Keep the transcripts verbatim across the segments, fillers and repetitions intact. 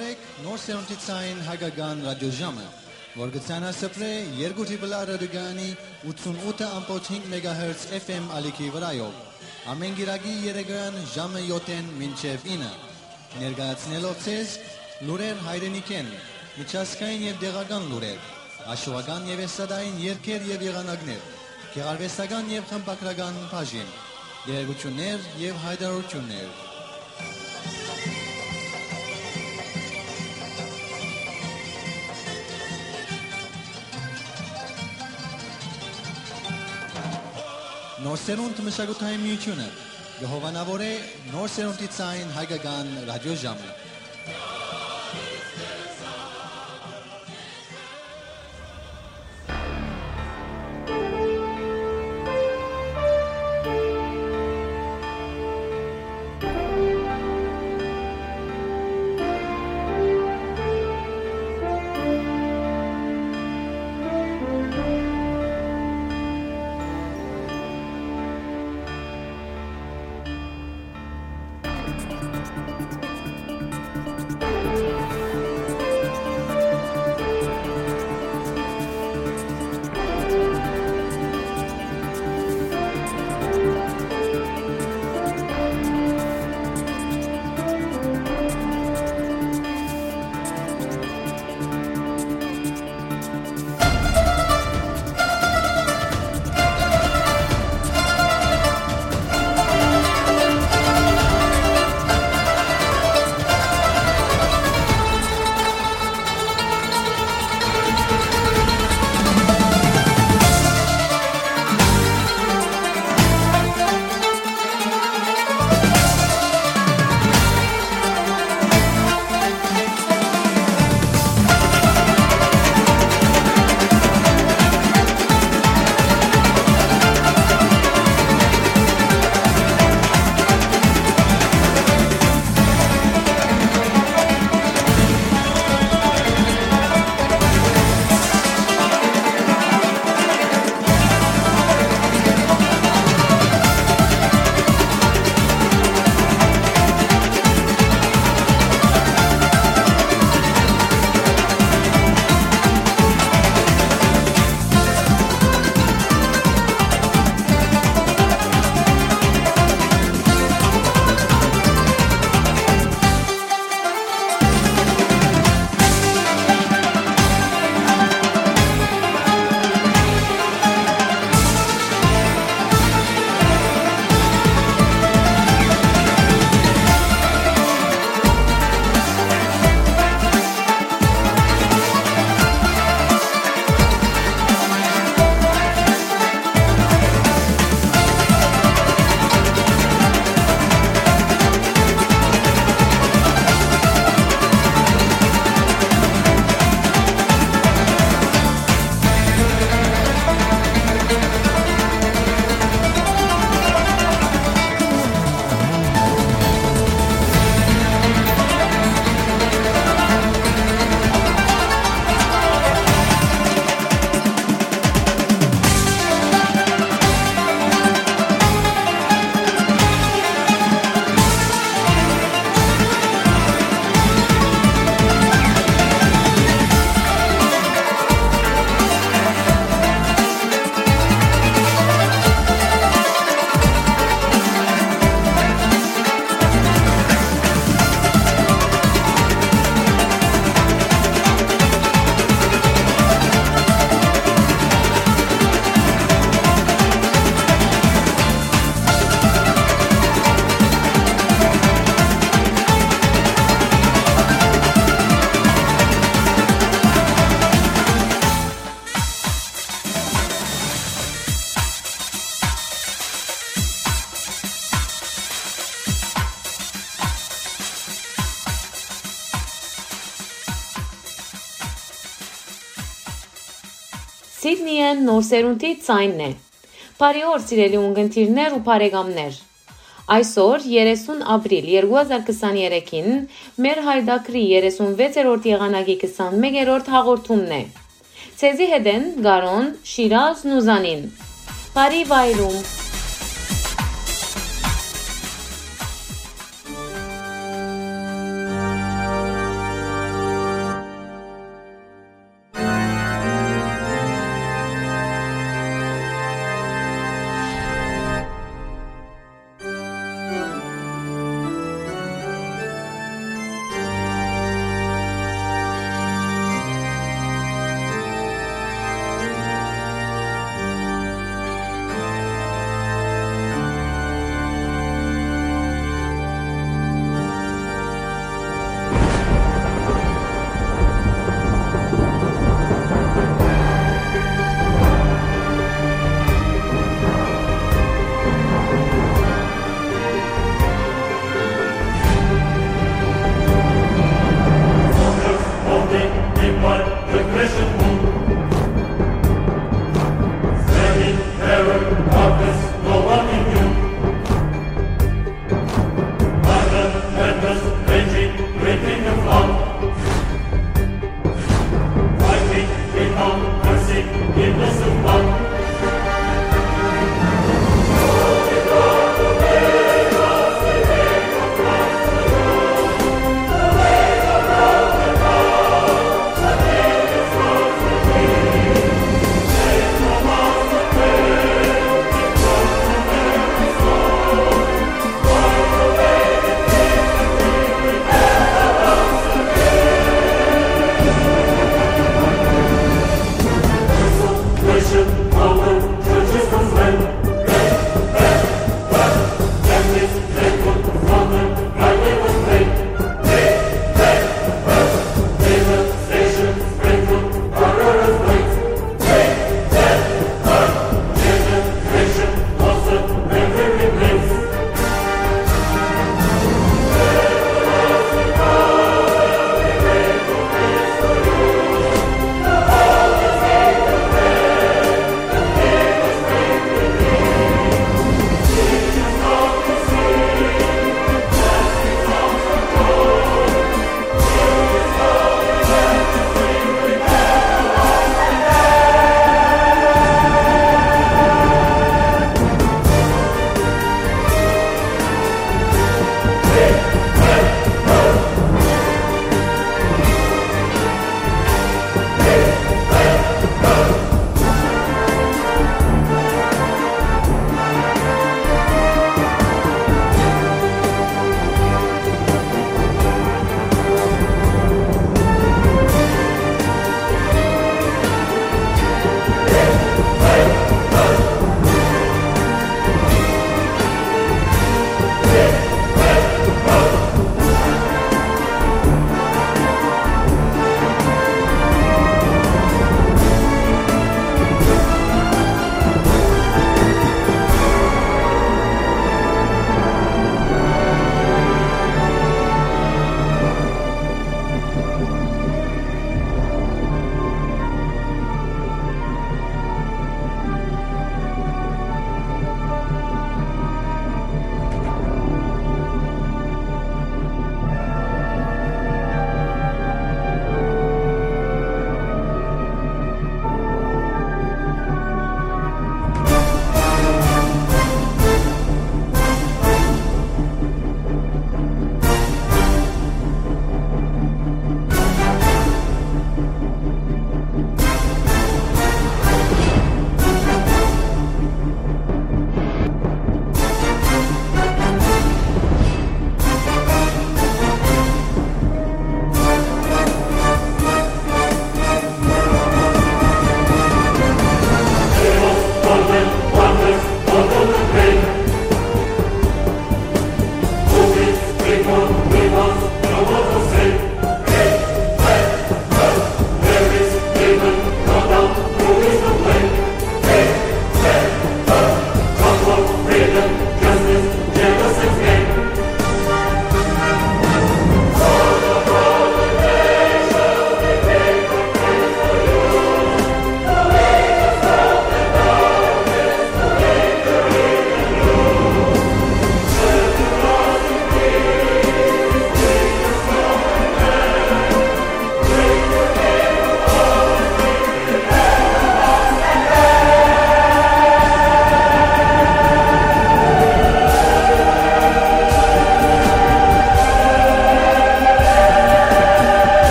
Նոր սերունդի ցային հայկական ռադիոժամը, որ կը ցանասփռէ երկու Triple R ռադիոկայանի ութսունութ ըմբոց հինգ մեգահերց F M ալիքի վրայով, ամէն կիրակի երեկոյեան ժամը յոթ մինչեւ ինը, ներկայացնելով ձեզ լուրեր հայրենիքէն, միջազգային եւ տեղական լուրեր, հաշուական եւ էստրադային երգեր եւ եղանակներ, գեղարուեստական եւ խմբագրական բաժին, տեղեկութիւններ եւ յայտարարութիւններ։ Նոր սերունդ մշակութային միութիւնը կը հովանաւորէ նոր սերունդի ցային հայկական ռադիոժամը։ Սիդնիէն նոր սերունդի ձայնն է։ Բարի օր, սիրելի ունկնդիրներ ու բարեկամներ։ Այսօր, երեսուն ապրիլ երկու հազար քսաներեքին, մեր հայտակրի երեսունվեցերորդ եղանակի քսանմեկերորդ հաղորդումն է։ Ձեզի հետ են Կարոն, Շիրազն ու Զանին։ Բարի վայրում։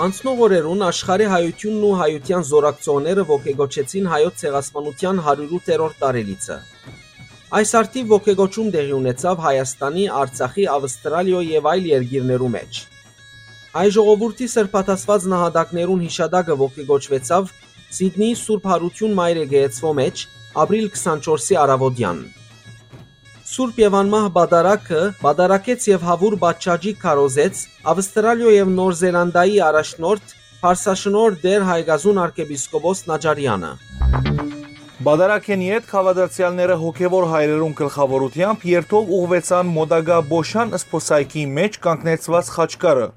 Անցնող օրերուն աշխարհի հայութիւնն ու հայութեան զօրակցողները ոգեկոչեցին հայոց ցեղասպանութեան հարիւրութերորդ տարելիցը։ Այս առթիւ ոգեկոչում տեղի ունեցաւ Հայաստանի, Արցախի, Ավստրալիոյ եւ այլ երկիրներու մէջ։ Հայ ժողովուրդի սրբադասված նահատակներուն յիշատակը ոգեկոչուեցաւ Սիդնիի Սուրբ Յարութիւն Մայր Եկեղեցւոյ մէջ ապրիլ քսանչորսի առաւօտեան։ Սուրբ եւ անմահ պատարագը պատարագեց եւ հաւուր պատշաճի քարոզեց Ավստրալիոյ եւ Նոր Զելանդիայի առաջնորդ Փարսաշնորհ Տէր Հայկազուն արքեպիսկոպոս Նաճարեանը։ Պատարագէն ետք հաւատացեալները հոգեւոր հայրերուն գլխաւորութեամբ երթով ուղղուեցան մօտակայ Պոշան սփոսայգի մէջ կանգնեցուած խաչքարը,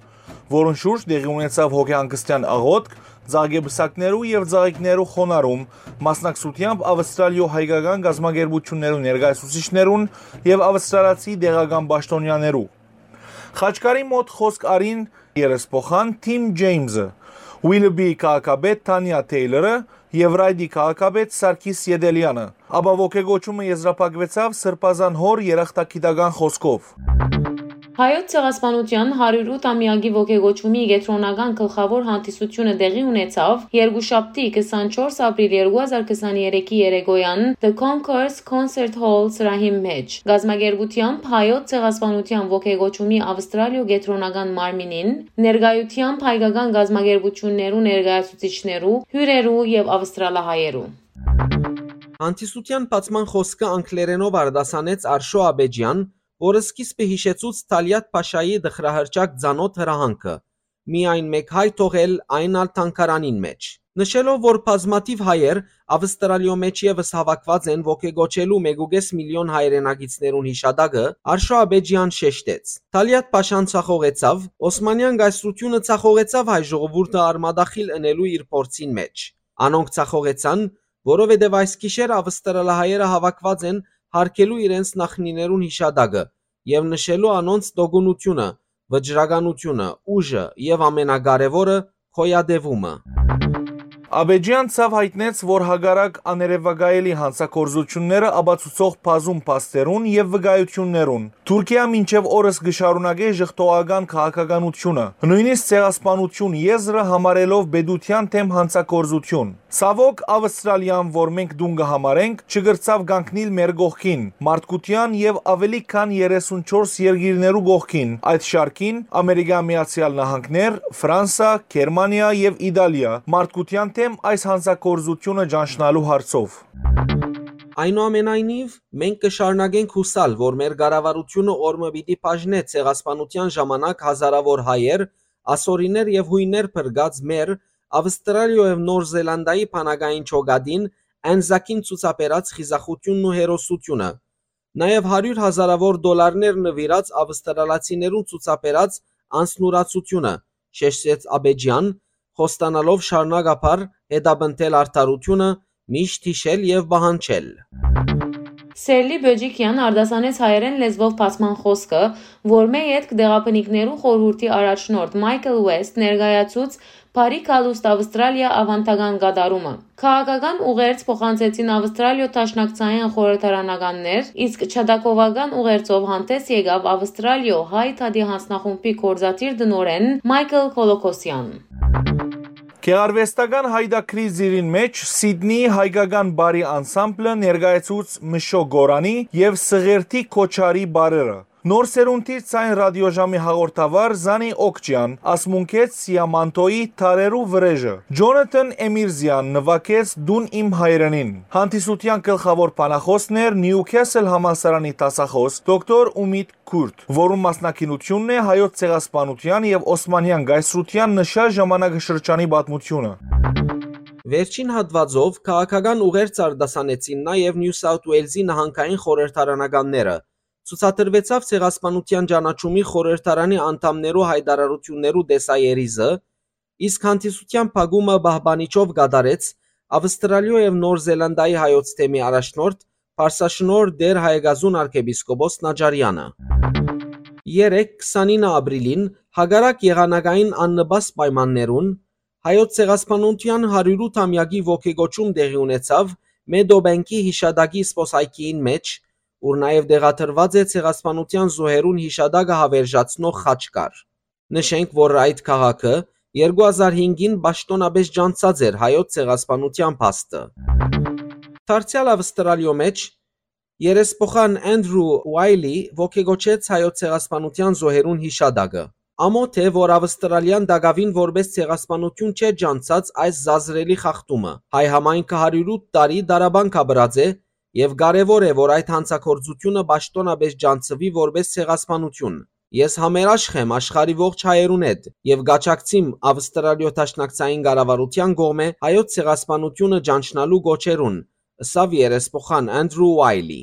որուն շուրջ տեղի ունեցաւ հոգեհանգստեան աղօթք, ծաղկեպսակներու եւ ծաղիկներու խոնարհում, մասնակցութեամբ Ավստրալիոյ հայկական կազմակերպութիւններու ներկայացուցիչներուն եւ ավստրալացի տեղական պաշտօնեաներու։ Խաչքարի մօտ խօսք առին երեսփոխան Թիմ Ջեյմսը, Ուիլբի քաղաքապետ Թանիա Թեյլորը եւ Ռայդի քաղաքապետ Սարգիս Ետելեանը, ապա ոգեկոչումը եզրափակուեցաւ Սրբազան հօր երախտագիտական խօսքով։ Հայոց ցեղասպանութեան հարիւրութ ամեակի ոգեկոչումի կեդրոնական գլխաւոր հանդիսությունը տեղի ունեցաւ երկուշաբթի, քսանչորս ապրիլ երկու հազար քսաներեքի երեկոյան The Concourse Concert Hall սրահին մէջ, կազմակերպութեամբ Հայոց ցեղասպանութեան ոգեկոչումի Ավստրալիոյ կեդրոնական մարմինին, ներկայութեամբ հայկական կազմակերպութիւններու ներկայացուցիչներու, հիւրերու եւ ավստրալահայերու։ Հանդիսութեան բացման խօսքը անգլերէնով արտասանեց Արշո Աբեջեան, որը սկիզբը յիշեցուց Թալիաթ Փաշայի տխրահռչակ ծանօթ հրահանգը՝ միայն մէկ հայ թողել, այն ալ թանգարանին մէջ։ Նշելով, որ բազմաթիւ հայեր Ավստրալիոյ մէջ եւս հաւաքուած են ոգեկոչելու մէկուկէս միլիոն հայրենակիցներուն յիշատակը, Արշո Աբեջեան շեշտեց. Թալիաթ Փաշան ցախողեցաւ, Օսմանեան կայսրութիւնը ցախողեցաւ հայ ժողովուրդը արմատախիլ ընելու իր փորձին մէջ։ Անոնք ցախողեցան, որովհետեւ այս գիշեր ավստրալահայերը հաւաքուած են յարգելու իրենց նախնիներուն յիշատակը եւ նշելու անոնց տոկունութիւնը, վճռականութիւնը, ուժը եւ ամենակարեւորը՝ գոյատեւումը։ Աբեջեան ցաւ յայտնեց, որ հակառակ աներեւակայելի յանցագործութիւնները ապացուցող բազում փաստերուն եւ վկայութիւններուն, Թուրքիա մինչեւ օրս կը շարունակէ ժխտողական քաղաքականութիւնը, նոյնիսկ ցեղասպանութիւն եզրը համարելով պետութեան դէմ յանցագործութիւն։ Ցաւօք, Ավստրալիան, որ մենք տուն կը համարենք, չկրցաւ կանգնիլ մեր կողքին, մարդկութեան եւ աւելի քան երեսունչորս երկիրներու կողքին, այդ շարքին՝ Ամերիկա Միացեալ Նահանգներ, Ֆրանսա, Գերմանիա եւ Իտալիա, մարդկութեան դէմ այս յանցագործութիւնը ճանչնալու հարցով։ Այնուամենայնիվ, մենք կը շարունակենք յուսալ, որ մեր կառավարութիւնը օր մը պիտի բաժնէ ցեղասպանութեան ժամանակ հազարաւոր հայեր, ասորիներ եւ յոյներ փրկած մեր, Ավստրալիոյ եւ Նոր Զելանդիայի բանակային ջոկատին, Անզակին ցուցաբերած խիզախութիւնն ու հերոսութիւնը, նաեւ հարիւր հազարաւոր դոլարներ նուիրած ավստրալացիներուն ցուցաբերած անձնուրացութիւնը, շեշտեց Աբեջեան, խոստանալով շարունակաբար հետապնդել արդարութիւնը, միշտ յիշել եւ պահանջել։ Սերլի Բեջիկեան արտասանեց հայերէն լեզուով բացման խօսքը, որ մէ ետք Տեղաբնիկներու խորհուրդի առաջնորդ Մայքլ Ուեսթ ներկայացուց Բարի գալուստ Ավստրալիա ավանդական կատարումը։ Քաղաքական ուղերձ փոխանցեցին Ավստրալիոյ դաշնակցային խորհրդարանականներ, իսկ ջատագովական ուղերձով հանդես եկաւ Ավստրալիոյ Հայ Դատի յանձնախումբի գործադիր տնօրէն Մայքլ Կոլոքոսեան։ Գեղարուեստական յայտագրի ծիրին մէջ Սիդնիի հայկական բարի անսամբլը ներկայացուց Մշո Գորանի եւ Սղերդի Քոչարի բարերը։ Նոր սերունդի Ձայն ռադիոժամի հաղորդավար Զանի Օքջեան ասմունքեց Սիամանթոյի Թարերու վրեժը։ Ջոնաթան Էմիրզեան նուագեց Դուն իմ հայրենին։ Հանդիսութեան գլխաւոր բանախօսն էր Նիուքեսլ համալսարանի դասախօս դոկտոր Ումիտ Քուրտ, որուն մասնակցությունն է հայոց ցեղասպանութեան եւ Օսմանեան կայսրութեան նշած ժամանակաշրջանի պատմութիւնը։ Վերջին հատուածով քաղաքական ուղերձ արտասանեցին նաեւ Նիու Սաութ Ուելզի նահանգային խորհրդարանականները։ Ցուցադրուեցաւ Ցեղասպանութեան ճանաչումի խորհրդարանի անդամներու յայտարարութիւններու տեսաերիզը, իսկ հանդիսութեան փակումը պահպանիչով կատարեց Ավստրալիոյ եւ Նոր Զելանդիայի հայոց թեմի առաջնորդ, Փարսաշնորհ Տէր Հայկազուն արքեպիսկոպոս Նաճարեանը։ Երեկ, քսանինը ապրիլին, հակառակ եղանակային աննպաստ պայմաններուն, հայոց ցեղասպանութեան հարիւրութ ամեակի ոգեկոչում տեղի ունեցաւ Մեդոբենքի յիշատակի սփոսայգիին մէջ, ուր նաեւ տեղադրուած է ցեղասպանութեան զոհերուն յիշատակը հաւերժացնող խաչքար։ Նշենք, որ այդ քաղաքը Երկու հազար հինգին պաշտօնապէս ճանչցած էր հայոց ցեղասպանութեան փաստը։ Դարձեալ Աւստրալիոյ մէջ երեսփոխան Անդրու Ուայլի ոգեկոչեց հայոց ցեղասպանութեան զոհերուն յիշատակը։ Ամօթ է, որ Աւստրալիան տակաւին որպէս ցեղասպանութիւն չէ ճանչցած այս զազրելի խախտումը։ Հայ համայնքը հարիւր ութ տարի տառապանք ապրած է եւ կարեւոր է, որ այդ հանցագործութիւնը պաշտօնապէս ճանչցուի որպէս ցեղասպանութիւն։ Ես համերաշխ եմ աշխարհի ողջ հայերուն հետ եւ կ'աջակցիմ Աւստրալիոյ Դաշնակցային կառավարութեան կողմէ հայոց ցեղասպանութիւնը ճանչնալու կոչերուն, ըսաւ երեսփոխան Անդրու Ուայլի։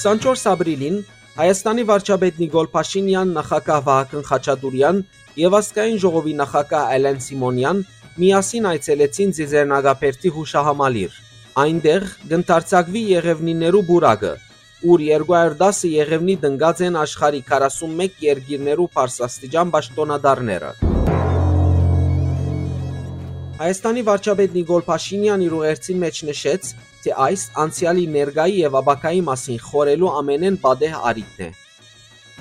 Քսանչորս ապրիլին Հայաստանի վարչապետ Նիկոլ Փաշինեան, նախագահ Վահագն Խաչատուրեան եւ ազգային ժողովի նախագահ Ալեն Սիմոնեան միասին այցելեցին Ծիծեռնակաբերդի յուշահամալիր։ Այնտեղ կ'ընդարձակուի Եղեւնիներու պուրակը, ուր երկու հարիւր տասը Եղեւնի տնկած են աշխարհի քառասունմեկ երկիրներու բարձրաստիճան պաշտօնատարները։ Հայաստանի վարչապետ Նիկոլ Փաշինեան իր ուղերձին մէջ նշեց, թէ այս անցեալի, ներկայի եւ ապագայի մասին խորհելու ամէնէն պատեհ առիթն է։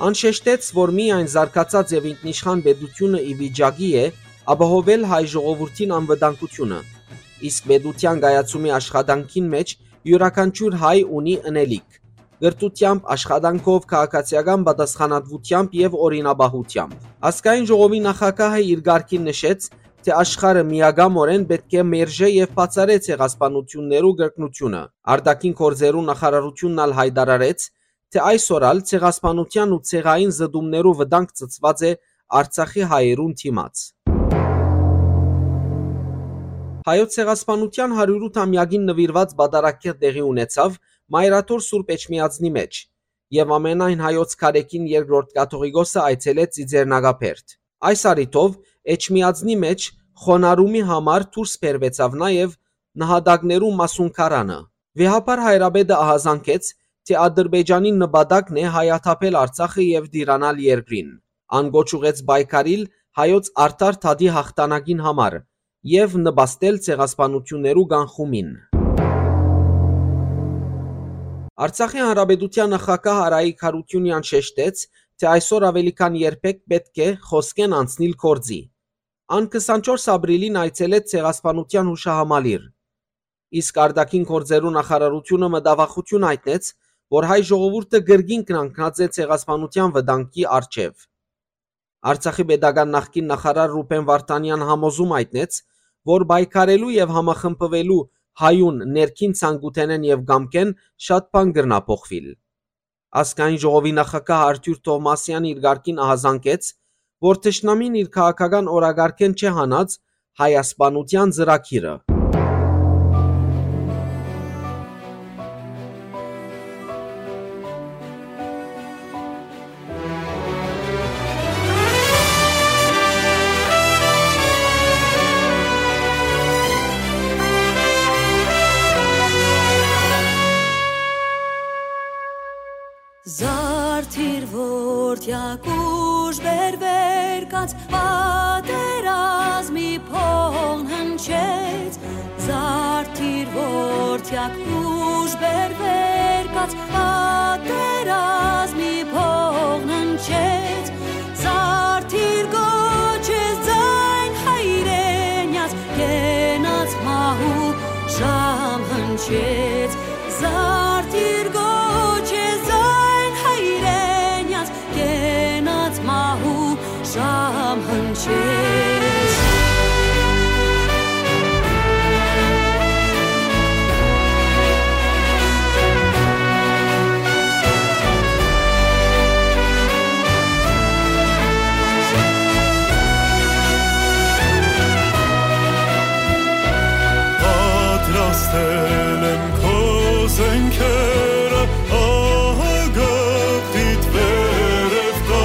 Ան շեշտեց, որ միայն զարգացած եւ ինքնիշխան պետութիւնը ի վիճակի է ապահովել հայ ժողովուրդին անվտանգութիւնը, իսկ պետութեան կայացումի աշխատանքին մէջ իւրաքանչիւր հայ ունի ընելիք, կրթութեամբ, աշխատանքով, քաղաքացիական պատասխանատուութեամբ եւ օրինապահութեամբ։ Ազգային ժողովի նախագահը իր կարգին նշեց, թէ աշխարհը միակամօրէն պէտք է մերժէ եւ բացառէ ցեղասպանութիւններու կրկնութիւնը։ Արտաքին գործերու նախարարութիւնն ալ յայտարարեց, թէ այսօր ալ ցեղասպանութեան ու ցեղային զտումներու վտանգ ծծուած է Արցախի հայերուն դիմաց։ Հայոց ցեղասպանութեան հարիւր ութամեակին նուիրուած պատարագ տեղի ունեցաւ Մայրաթոր Սուրբ Էջմիածնի մէջ եւ ամենայն հայոց քարէքին երկրորդ կաթողիկոսը այցելեց Ծիծեռնակաբերդ։ Այս առիթով Էջմիածնի մէջ խոնարհումի համար դուրս բերուեցաւ նաեւ նահատակներու մասունքարանը։ Վեհափառ հայրապետը ահազանգեց, թէ Ադրբեջանին նպատակն է հայաթափել Արցախը եւ տիրանալ երկրին։ Ան կոչ ուղղեց պայքարիլ հայոց արդար դատի յաղթանակին համար եւ նպաստել ցեղասպանութիւններու կանխումին։ Արցախի Հանրապետութեան նախագահ Արայիկ Յարութիւնեան շեշտեց, թէ այսօր աւելի քան երբեք պէտք է խօսքէն անցնիլ գործի։ Ան քսանչորս ապրիլին այցելեց Ցեղասպանութեան յուշահամալիր, իսկ արտաքին գործերու նախարարութիւնը մտավախութիւն յայտնեց, որ հայ ժողովուրդը կրկին կանգնած է ցեղասպանութեան վտանգի առջեւ։ Արցախի պետական նախկին նախարար Ռուբեն Վարդանեան համոզում յայտնեց, որ պայքարելու եւ համախմբուելու հայուն ներքին ցանկութենէն եւ կամքէն շատ բան կրնայ փոխուիլ։ Ազգային ժողովի նախագահ Արթուր Թովմասեան իր կարգին ահազանգեց, որ թշնամին իր քաղաքական օրակարգէն չէ հանած հայասպանութեան ծրագիրը։ Զարդիր որդեակ ուժ բերվեր կաց պատերազմի փողն հնչեց, զարդիր որդեակ ուժ բերվեր կաց պատերազմի փողն հնչեց, զարդիր կոչես ձայն հայրենյաց կենաց մահու ժամ հնչեց, զարդիր կոչես ձայն հայրենյաց կենաց մահու ժամ հնչեց։ Պատրաստել եմ քո զենքերը, ահա գաղտնիդ վերև կա,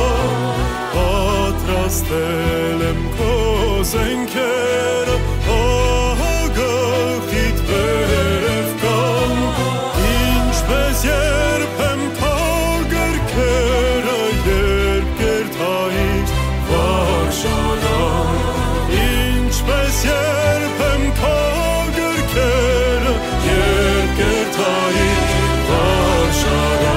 պատրաստել եմ քո զենքերը, ահա գաղտնիդ վերև կան, ինչպես երբեմ քո գրքերը, երբ կերթայիր վարժարան, ինչպես երբեմ քո գրքերը, երբ կերթայիր վարժարան։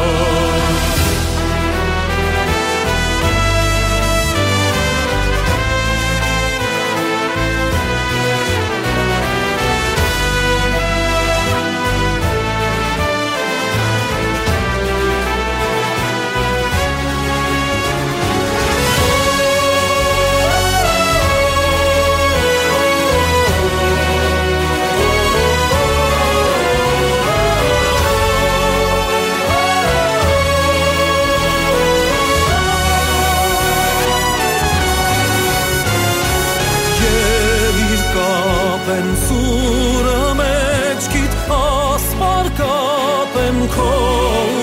Ելիր կապեմ սուրը, մեջքիդ ասպար կապեմ քո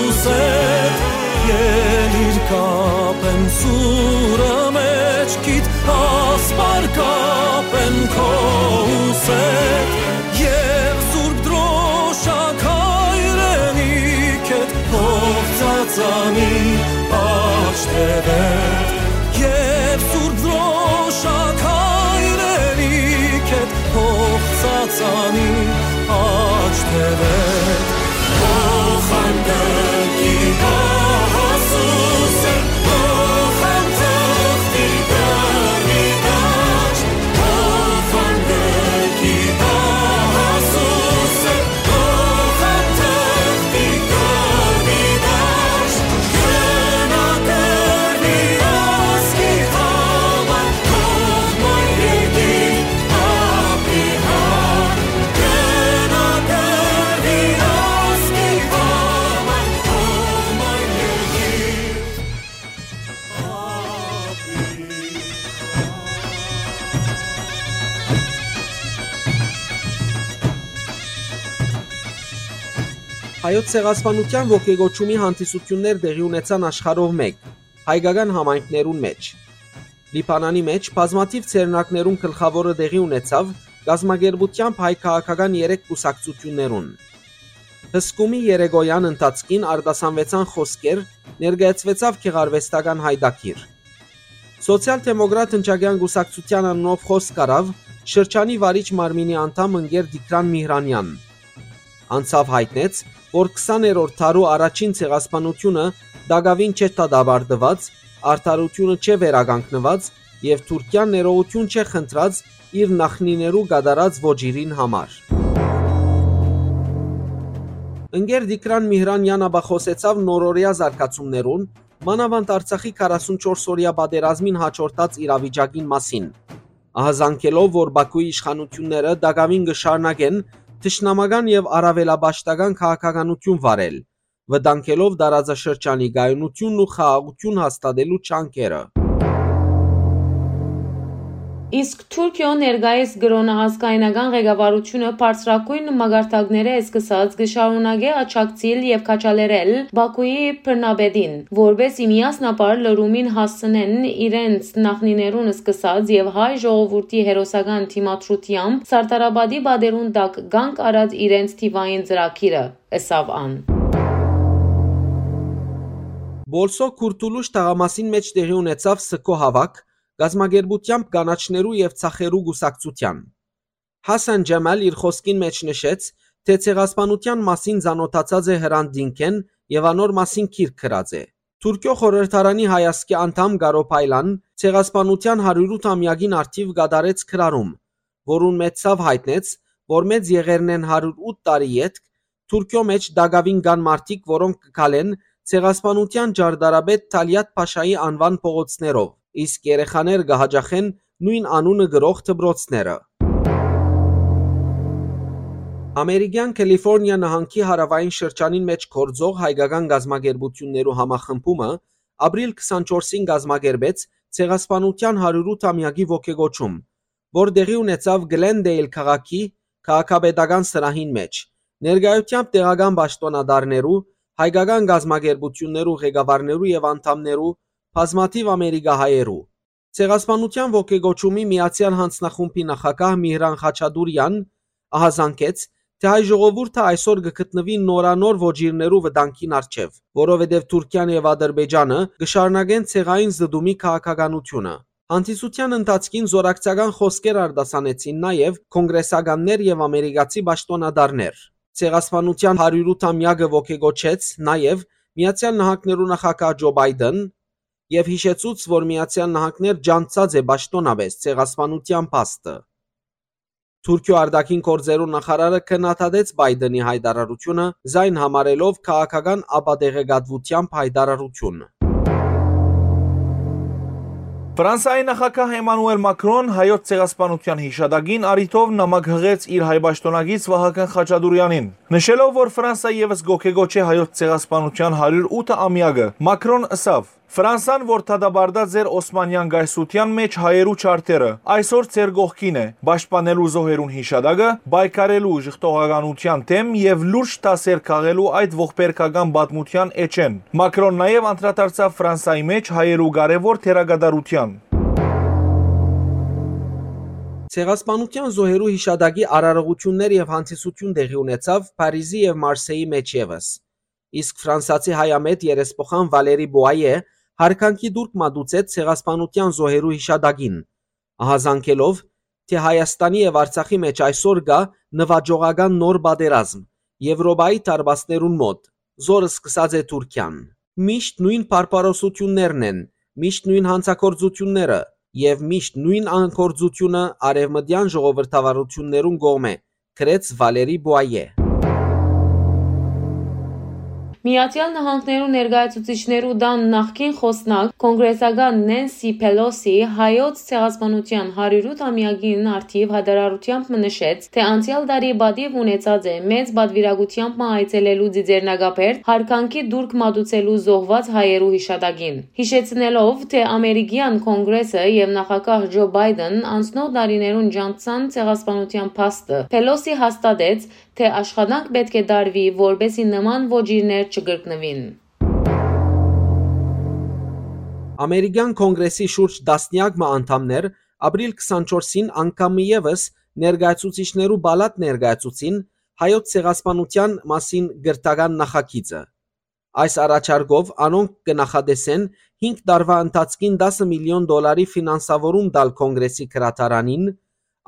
ուսեդ, ելիր կապեմ սուրը, մեջ Քիդ ասպար կապեն քո ուսեդ, եւ Սուրբ Դրոշակ հայրենիքդ փոխ ծածանի աջ թեւեդ, եւ Սուրբ Դրոշակ հայրենիքդ փոխ ծածանի աջ թեւեդ։ Փոխանցի գահասուսը, փոխանցի գահի դաշտ, փոխանցի գահասուսը, փոխանցի գահի դաշտ, գնա կռվի ազգի համար, թող մայրիկի Հայոց ցեղասպանութեան ոգեկոչումի հանդիսութիւններ տեղի ունեցան աշխարհով մէկ, հայկական համայնքներուն մէջ։ Լիբանանի մէջ բազմաթիւ ձեռնարկներուն գլխաւորը տեղի ունեցաւ կազմակերպութեամբ հայ քաղաքական երեք կուսակցութիւններուն։ Հսկումի երեկոյեան ընթացքին արտասանուեցան խօսքեր, ներկայացուեցաւ գեղարուեստական յայտագիր։ Սոցիալ-դեմոկրատ ընչակեան կուսակցութեան անունով խօսք առաւ շրջանի վարիչ մարմինի անդամ ընկեր Տիգրան Միհրանեան։ Անցաւ յայտնեց, որ քսաներորդ դարու առաջին ցեղասպանութիւնը տակաւին չէ դատապարտուած, արդարութիւնը չէ վերականգնուած եւ Թուրքիան ներողութիւն չէ խնդրած իր նախնիներու կատարած ոճիրին համար։ Ընկեր Տիգրան Միհրանեան ապա խօսեցաւ նորօրեայ զարգացումներուն, մանաւանդ Արցախի քառասունչորս օրեայ պատերազմին յաջորդած իրավիճակին մասին, ահազանգելով, որ Բաքուի իշխանութիւնները տակաւին կը շարունակեն թշնամական եւ առաւելապաշտական քաղաքականութիւն վարել, վտանգելով տարածաշրջանի կայունութիւնն ու խաղաղութիւն հաստատելու ջանքերը։ Իսկ Թուրքիոյ ներկայիս կրօնը ազգայնական ղեկավարութիւնը բարձրագոյն մակարդակներէ սկսած կը շարունակէ աջակցիլ եւ քաջալերել Բաքուի բռնապետին, որպէս զի միասնաբար լրումին հասցնեն իրենց նախնիներուն սկսած եւ հայ ժողովուրդի հերոսական դիմադրութեամբ Սարդարապատի պատերուն տակ կանգ առած իրենց թիւային ծրագիրը, ըսաւ ան։ Բոլսո Քուրթուլուշ թաղամասին մէջ տեղի ունեցաւ Սքո հաւաք, կազմակերպութեամբ կանաչներու եւ ծախերու կուսակցութեան։ Հասան Ջեմալ իր խօսքին մէջ նշեց, թէ ցեղասպանութեան մասին ծանօթացած է Հրանդ Դինքէն եւ անոր մասին գիրք գրած է։ Թուրքիոյ խորհրդարանի հայ ազգի անդամ Կարո Փայլան ցեղասպանութեան հարիւր ութ ամեակին առթիւ կատարեց գրառում, որուն մէջ ցաւ յայտնեց, որ մեծ եղերնէն հարիւր ութ տարի ետք Թուրքիոյ մէջ տակաւին կան մարդիկ, որոնք կը քալեն ցեղասպանութեան ճարտարապետ Թալիաթ Փաշայի անուան փողոցներով, իսկ երեխաներ կը յաճախեն նոյն անունը կրող դպրոցները։ Ամերիկեան Կալիֆորնիա նահանգի հարաւային շրջանին մէջ գործող հայկական կազմակերպութիւններու համախմբումը ապրիլ քսանչորսին կազմակերպեց ցեղասպանութեան հարիւր ութ ամեակի ոգեկոչում, որ տեղի ունեցաւ Գլենդեյլ քաղաքի քաղաքապետական սրահին մէջ, ներկայութեամբ տեղական պաշտօնատարներու, հայկական կազմակերպութիւններու ղեկավարներու եւ անդամներու, բազմաթիւ ամերիկահայերու։ Ցեղասպանութեան ոգեկոչումի միացեալ յանձնախումբի նախագահ Միհրան Խաչատուրեան ահազանգեց, թէ հայ ժողովուրդը այսօր կը գտնուի նորանոր ոճիրներու վտանգին առջեւ, որովհետեւ Թուրքիան եւ Ադրբեջանը կը շարունակեն ցեղային զտումի քաղաքականութիւնը։ Հանդիսութեան ընթացքին զօրակցական խօսքեր արտասանեցին նաեւ կոնգրեսականներ եւ ամերիկացի պաշտօնատարներ։ Ցեղասպանութեան հարիւր ութ ամեակը ոգեկոչեց նաեւ Միացեալ Նահանգներու նախագահ Ջո Պայդեն եւ յիշեցուց, որ Միացեալ Նահանգներ ջանցած է պաշտօնապէս ցեղասպանութեան փաստը։ Թուրքիոյ արտաքին գործերու նախարարը քննադատեց Պայդենի յայտարարութիւնը, զայն համարելով քաղաքական ապատեղեկատուութեամբ յայտարարութիւն։ Ֆրանսայի նախագահ Էմանուել Մակրոն հայոց ցեղասպանութեան յիշատակին առիթով նամակ յղեց իր հայ պաշտօնակից Վահագն Խաչատուրեանին, նշելով, որ Ֆրանսա եւս կոգեկոչէ հայոց ցեղասպանութեան հարիւր ութ ամեակը։ Մակրոն ըսաւ. «Ֆրանսան, որ դատապարտած էր Օսմանեան կայսրութեան մէջ հայերու ջարդերը, այսօր ձեր կողքին է, պաշտպանելու զոհերուն յիշատակը, պայքարելու ժխտողականութեան դէմ եւ լուրջ դասեր քաղելու այդ ողբերգական պատմութեան էջէն»։ Մակրոն նաեւ անդրադարձաւ Ֆրանսայի մէջ հայերու կարեւոր դերակատարութեան։ Ցեղասպանութեան զոհերու յիշատակի արարողութիւններ եւ հանդիսութիւն տեղի ունեցաւ Փարիզի եւ Մարսէի մէջ եւս։ Իսկ ֆրանսացի հայամետ երեսփոխան Վալերի Պուայէ յարգանքի տուրք մատուցեց ցեղասպանութեան զոհերու յիշատակին, ահազանգելով, թէ Հայաստանի եւ Արցախի մէջ այսօր կայ նուաճողական նոր պատերազմ, Եւրոպայի դարպասներուն մօտ, զոր սկսած է Թուրքիան։ Միշտ նոյն բարբարոսութիւններն են, միշտ նոյն յանցագործութիւնները եւ միշտ նոյն անգործութիւնը արեւմտեան ժողովրդավարութիւններուն կողմէ, գրեց Վալերի Պուայէ։ Միացեալ Նահանգներու ներկայացուցիչներու տան նախկին խօսնակ, կոնգրեսական Նենսի Փելոսի, հայոց ցեղասպանութեան հարիւրութ ամեակին առթիւ յայտարարութեամբ մը նշեց, թէ անցեալ տարի պատիւ ունեցած է մեծ պատուիրակութեամբ մը այցելելու Ծիծեռնակաբերդ, յարգանքի տուրք մատուցելու զոհուած հայերու յիշատակին, յիշեցնելով, թէ ամերիկեան կոնգրեսը եւ նախագահ Ջո Պայտն անցնող տարիներուն ճանչցան ցեղասպանութեան փաստը։ Փելոսի հաստատեց, թէ աշխատանք պէտք է տարուի, որպէսզի նման ոճիրներ չկրկնուին։ Ամերիկեան Կոնգրեսի շուրջ տասնեակ մը անդամներ ապրիլ քսանչորսին անգամ մը եւս ներկայացուցիչներու պալատ ներկայացուցին հայոց ցեղասպանութեան մասին կրթական նախագիծը։ Այս առաջարկով անոնք կը նախատեսեն հինգ տարուայ ընթացքին տասը միլիոն դոլարի ֆինանսավորում տալ Կոնգրեսի գրադարանին,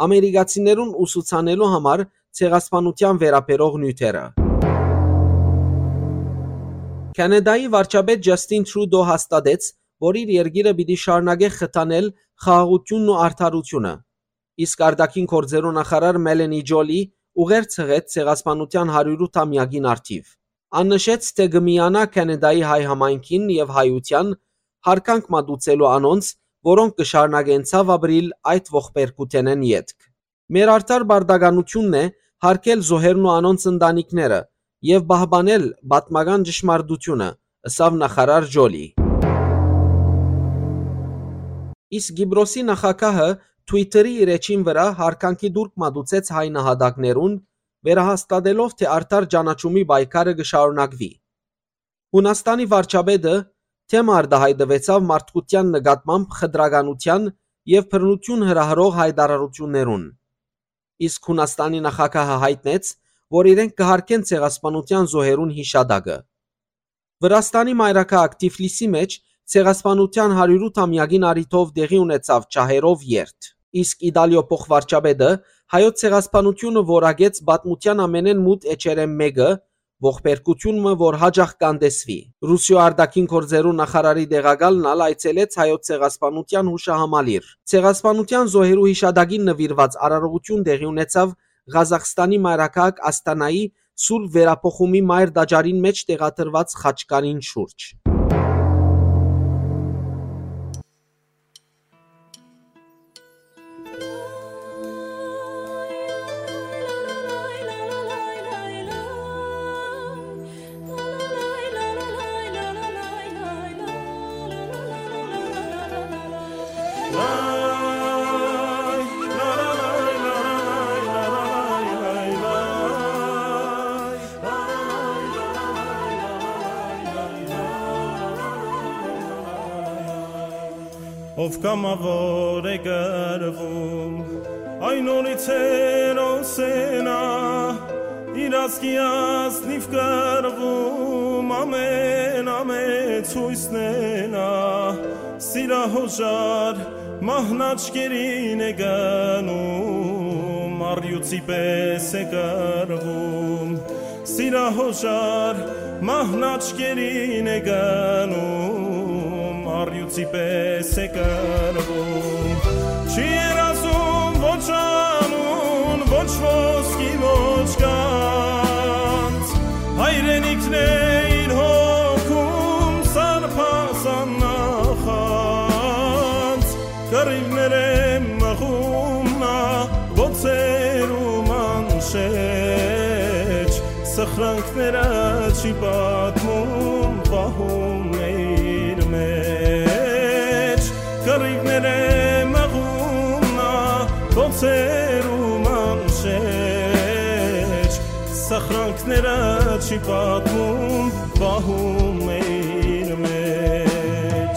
ամերիկացիներուն ուսուցանելու համար ցեղասպանութեան վերաբերող նիւթերը։ Քանեդայի վարչապետ Ջասթին Թրուդո հաստատեց, որ իր երկիրը պիտի շարունակէ խթանել խաղաղութիւնն ու արդարութիւնը, իսկ արտաքին գործերու նախարար Մելենի Ջոլի ուղերձ յղեց ցեղասպանութեան հարիւրութ ամեակին առթիւ։ Ան նշեց, թէ կը միանայ Քանեդայի հայ համայնքին եւ հայութեան, յարգանք մատուցելու անոնց, որոնք կը շարունակեն ցաւ ապրիլ այդ ողբերգութենէն ետք։ Մեր արդար պարտականութիւնն է յարգել զոհերն ու անոնց ընտանիքները եւ պահպանել պատմական ճշմարտութիւնը, ըսաւ նախարար Ջոլի։ Իսկ Կիպրոսի նախագահը Twitter-ի իր էջին վրայ յարգանքի տուրք մատուցեց հայ նահատակներուն, վերահաստատելով, թէ արդար ճանաչումի պայքարը կը շարունակուի։ Յունաստանի վարչապետը թէ մը արտայայտուեցաւ մարդկութեան նկատմամբ խտրականութեան եւ բռնութիւն հրահրող յայտարարութիւններուն։ Իսկ Յունաստանի նախագահը յայտնեց, որ իրենք կը յարգեն ցեղասպանութեան զոհերուն յիշատակը։ Վրաստանի մայրաքաղաք Թիֆլիսի մէջ ցեղասպանութեան հարիւրութ ամեակին առիթով տեղի ունեցաւ ջահերով երթ։ Իսկ Իտալիոյ փոխվարչապետը հայոց ցեղասպանութիւնը որակեց պատմութեան ամենէն մութ էջերէն մէկը, ողբերգութիւն մը, որ յաճախ կ'անտեսուի։ Ռուսիոյ արտաքին գործերու նախարարի տեղակալն ալ այցելեց հայոց ցեղասպանութեան յուշահամալիր։ Ցեղասպանութեան զոհերու յիշատակին նուիրուած արարողութիւն տեղի ունեցաւ Ղազախստանի մայրաքաղաք Ասթանայի Սուրբ Վերափոխումի մայր տաճարին մէջ տեղադրուած խաչքարին շուրջ։ Ով կամաւոր է կռվում, այն նորից հերոս է նա, իր ազգի ազնիվ կռվում, ամեն ամեց յոյսն է նա, սիրահոժար մահն աչքերին է գնում, առյուծի պես է կռվում, սիրահոժար մահն աչքերին է գնում, առյուծի պես է կռվում։ Չի երազում ոչ անուն, ոչ ոսկի, ոչ գանձ, հայրենիքն է իր հոգում սարբազան նախանձ, կռիվներ է մղում նա բոցերու մանշէջ, սխրանքները չի պատմում, պահում է իր մեջ, կռիվներ է մղում նա բոցերու մանշէջ, սխրանքները չի պատմում, պահում է իր մեջ։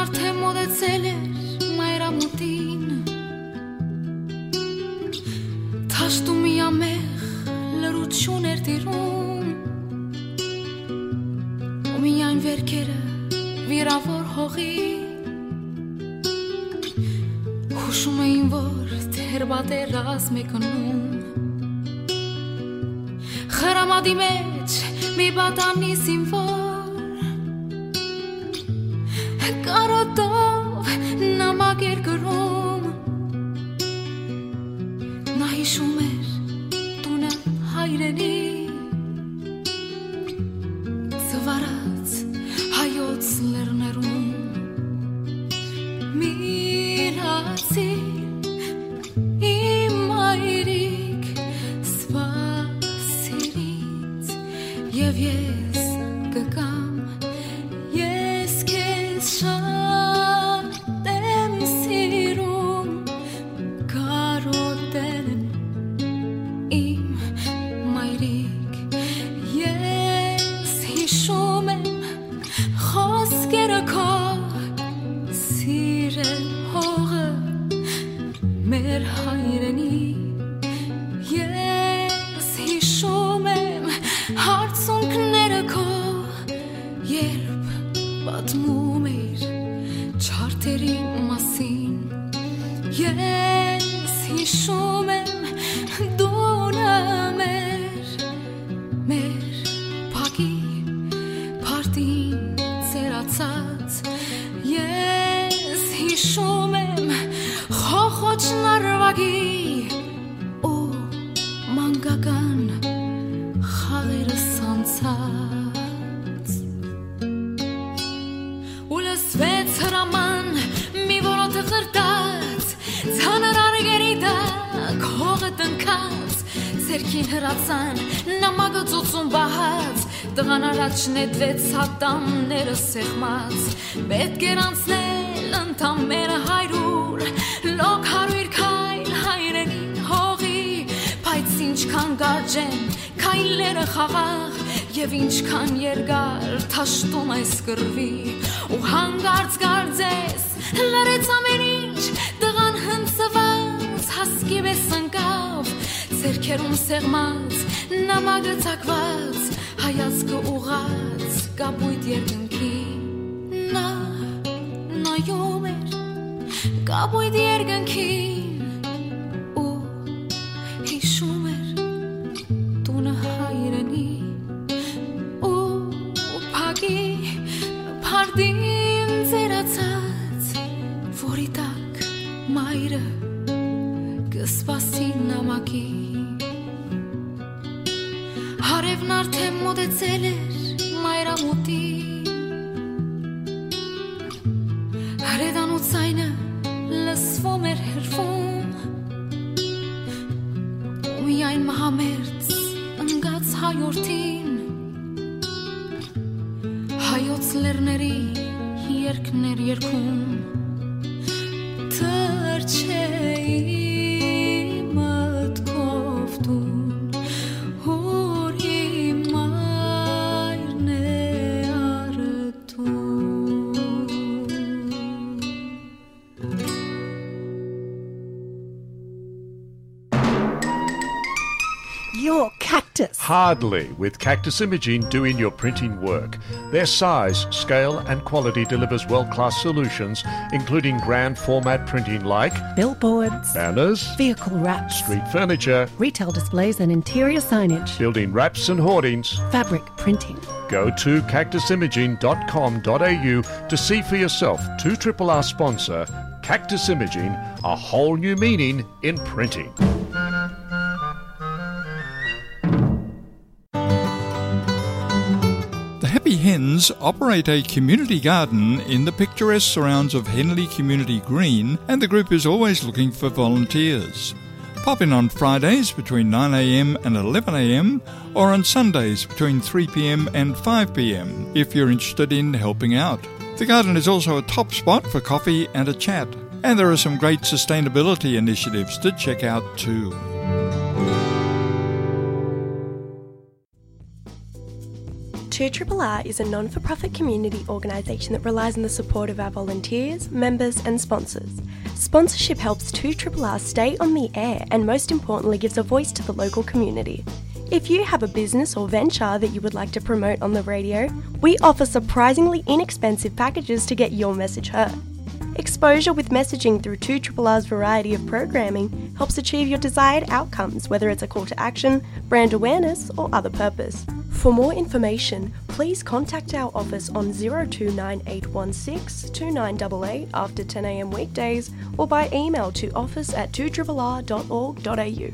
Արդեն մոտեցել էր մայրամուտին, դաշտում միամեղ լռություն էր տիրում, ու միայն վերքերը վիրաւոր հողի հուշում էին, որ թերբատեր ռազմեկանում խրամատի մեջ մի պատանի զինվոր կարոտով նամակ էր գրում։ Նա հիշում էր տունը հայրենի, ծվարած հայոց լեռներում։ Մինացի իմ մայրիկ, սպասիր ինձ, եւ ես կգամ, ես քեզ շատ եմ սիրում, կարոտեմ իմ մայրիկ, ես հիշում եմ խօսքերը քո, սիրել հողը մեր հայրենի, ես հիշում եմ հարցունքները քո, երբ պատմում էիր չարդերի մասին, ես հիշում եմ դունը մեր, մեր փակի փարդին ծերացած, ես հիշում եմ խոխոճ նարվագի ու մանկական խաղերս անցած։ Ու լսվեց հրաման մի որոթ խրտած, ծանր արգերի տակ հողը տնքած, ձեռքին հրացան նամակը ծոցուն պահած, տղան առաջ նետվեց ատամները սեղմած, պետք էր անցնել ընդամենը հարյուր, լոկ հարյուր քայլ հայրենին հողի, բայց ինչքան կարճ են քայլերը խաղաղ, եւ ինչքան երկար դաշտում այս կռվի, ու հանկարծ կարծես լռեց ամեն ինչ, տղան հնձված հասկի պես ընկավ, ձեռքերում սեղմած նամակը ծակված, հայացքը ուղղած կապույտ երկնքին։ Նա նայում էր կապույտ երկնքին ու հիշում էր տունը հայրենի ու փակի փարդին ծերացած, որի տակ մայրը կը սպասի նամակի։ Հարեւն արդեն մոտեցել էր մայրամուտին, հրետանու ձայնը լսվում էր հեռվում, ու միայն մահամերձ ընկած հայորդին հայոց լեռների երկներ երկում։ Թռչէի մտքով տուն, ուր իմ մայրն է առտուն։ Your cactus. Hardly, with Cactus Imaging doing your printing work. Their size, scale, and quality delivers world-class solutions, including grand format printing like billboards, banners, vehicle wraps, street furniture, retail displays and interior signage, building wraps and hoardings, fabric printing. Go to cactus imaging dot com dot a u to see for yourself. Two triple R sponsor, Cactus Imaging, a whole new meaning in printing. The Happy Hens operate a community garden in the picturesque surrounds of Henley Community Green, and the group is always looking for volunteers. Pop in on Fridays between nine a m and eleven a m, or on Sundays between three p m and five p m if you're interested in helping out. The garden is also a top spot for coffee and a chat, and there are some great sustainability initiatives to check out too. Two R R R is a non for profit community organisation that relies on the support of our volunteers, members, and sponsors. Sponsorship helps Two R R R stay on the air and, most importantly, gives a voice to the local community. If you have a business or venture that you would like to promote on the radio, we offer surprisingly inexpensive packages to get your message heard. Exposure with messaging through Two R R R's variety of programming helps achieve your desired outcomes, whether it's a call to action, brand awareness, or other purpose. For more information, please contact our office on zero two nine eight one six two nine eight eight after ten a.m. weekdays or by email to office at two R R R dot org dot a u.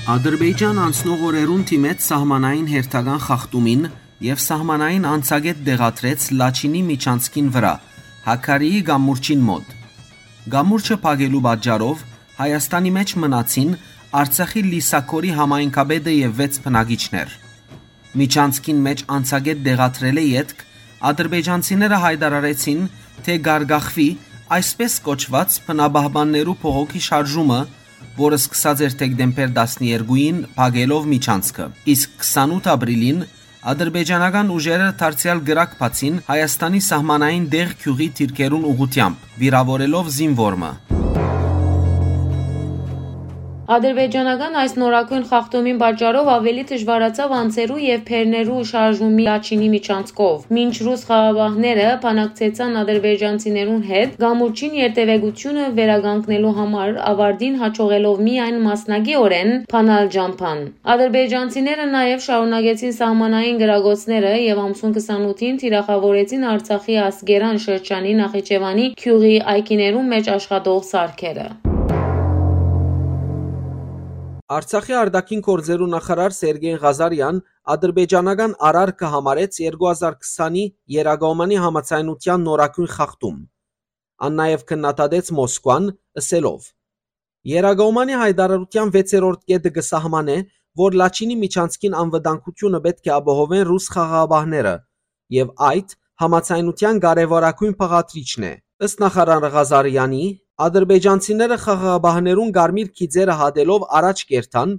Ադրբեջան անցնող օրերուն դիմեց սահմանային հերթական խախտումին եւ սահմանային անցակետ տեղադրեց Լաչինի միջանցքին վրայ, Հաքարիի կամուրջին մօտ։ Կամուրջը փակելու պատճառով Հայաստանի մէջ մնացին Արցախի Լիսաքորի համայնքապետը եւ վեց բնակիչներ։ Միջանցքին մէջ անցակետ տեղադրելէ ետք ադրբեջանցիները յայտարարեցին, թէ կ'արգախուի այսպես կոչուած բնապահպաններու փողոքի շարժումը, որը սկսած էր դեկտեմբեր տասներկուին փակելով միջանցքը, իսկ քսանութ ապրիլին ադրբեջանական ուժերը դարձեալ կրակ բացին Հայաստանի սահմանային Դեղ գիւղի դիրքերուն ուղղութեամբ, վիրաւորելով զինվոր մը։ Ադրբեջանական այս նորագոյն խախտումին պատճառով աւելի դժուարացաւ անձերու եւ բեռներու շարժումը Լաչինի միջանցքով, մինչ ռուս խաղաղապահները բանակցեցան ադրբեջանցիներուն հետ կամուրջին երթեւեկությունը վերականգնելու համար, ավարտին յաջողելով միայն մասնակիորեն բանալ ճամբան։ Ադրբեջանցիները նաեւ շարունակեցին սահմանային կրակոցները եւ ամսուն քսանութին թիրախաւորեցին Արցախի Ասկերան շրջանի Նախիջեւանի գիւղի այգիներուն մէջ աշխատող սարքերը։ Արցախի արտաքին գործերու նախարար Սերգէյ Ղազարեան ադրբեջանական արարքը համարեց երկու հազար քսանի Երակոմանի համաձայնութեան նորագոյն խախտում։ Ան նաեւ քննադատեց Մոսկուան, ըսելով. «Երակոմանի յայտարարութեան վեցերորդ կետը կը սահմանէ, որ Լաչինի միջանցքին անվտանգությունը պէտք է ապահովեն ռուս խաղաղապահները, եւ այդ համաձայնութեան կարեւորագոյն բաղադրիչն է»։ Ըստ նախարար Ղազարեանի, ադրբեջանցիները խաղաղապահներուն կարմիր գիծերը հատելով առաջ կ'երթան,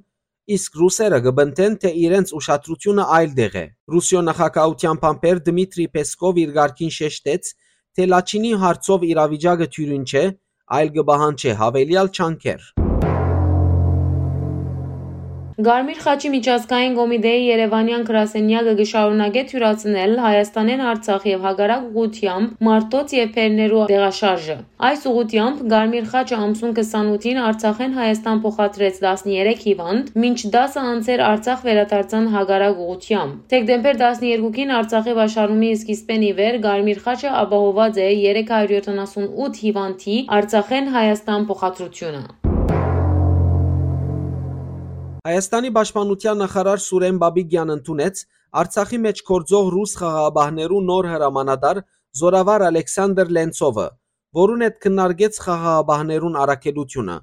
իսկ ռուսերը կը պնդեն, թէ իրենց ուշադրությունը այլ տեղ է։ Ռուսիոյ նախագահութեան բանբեր Դմիտրի Պեսկով իր կարգին շեշտեց, թէ Լաչինի հարցով իրավիճակը դիւրին չէ, այլ կը պահանջէ յաւելեալ ջանքեր։ Կարմիր խաչի միջազգային կոմիտեի երեւանեան գրասենյակը կը շարունակէ թիւրացնել Հայաստանէն Արցախ եւ հակառակ ուղղութեամբ մարդոց եւ բեռներու տեղաշարժը։ Այս ուղղութեամբ Կարմիր խաչը ամսուն քսանութին Արցախէն Հայաստան փոխադրեց տասներեք հիվանդ, մինչ տասը անձեր Արցախ վերադարձան հակառակ ուղղութեամբ։ Դեկտեմբեր տասներկուին Արցախի պաշարումի սկիզբէն ի վեր Կարմիր խաչը ապահոված է երեք հարյուր յոթանասունութ հիվանդի Արցախէն Հայաստան փոխադրությունը։ Հայաստանի պաշտպանութեան նախարար Սուրեն Բաբիկեան ընդունեց Արցախի մէջ գործող ռուս խաղաղապահներու նոր հրամանատար զօրավար Ալեքսանդր Լենցովը, որուն հետ քննարկեց խաղաղապահներուն առաքելութիւնը,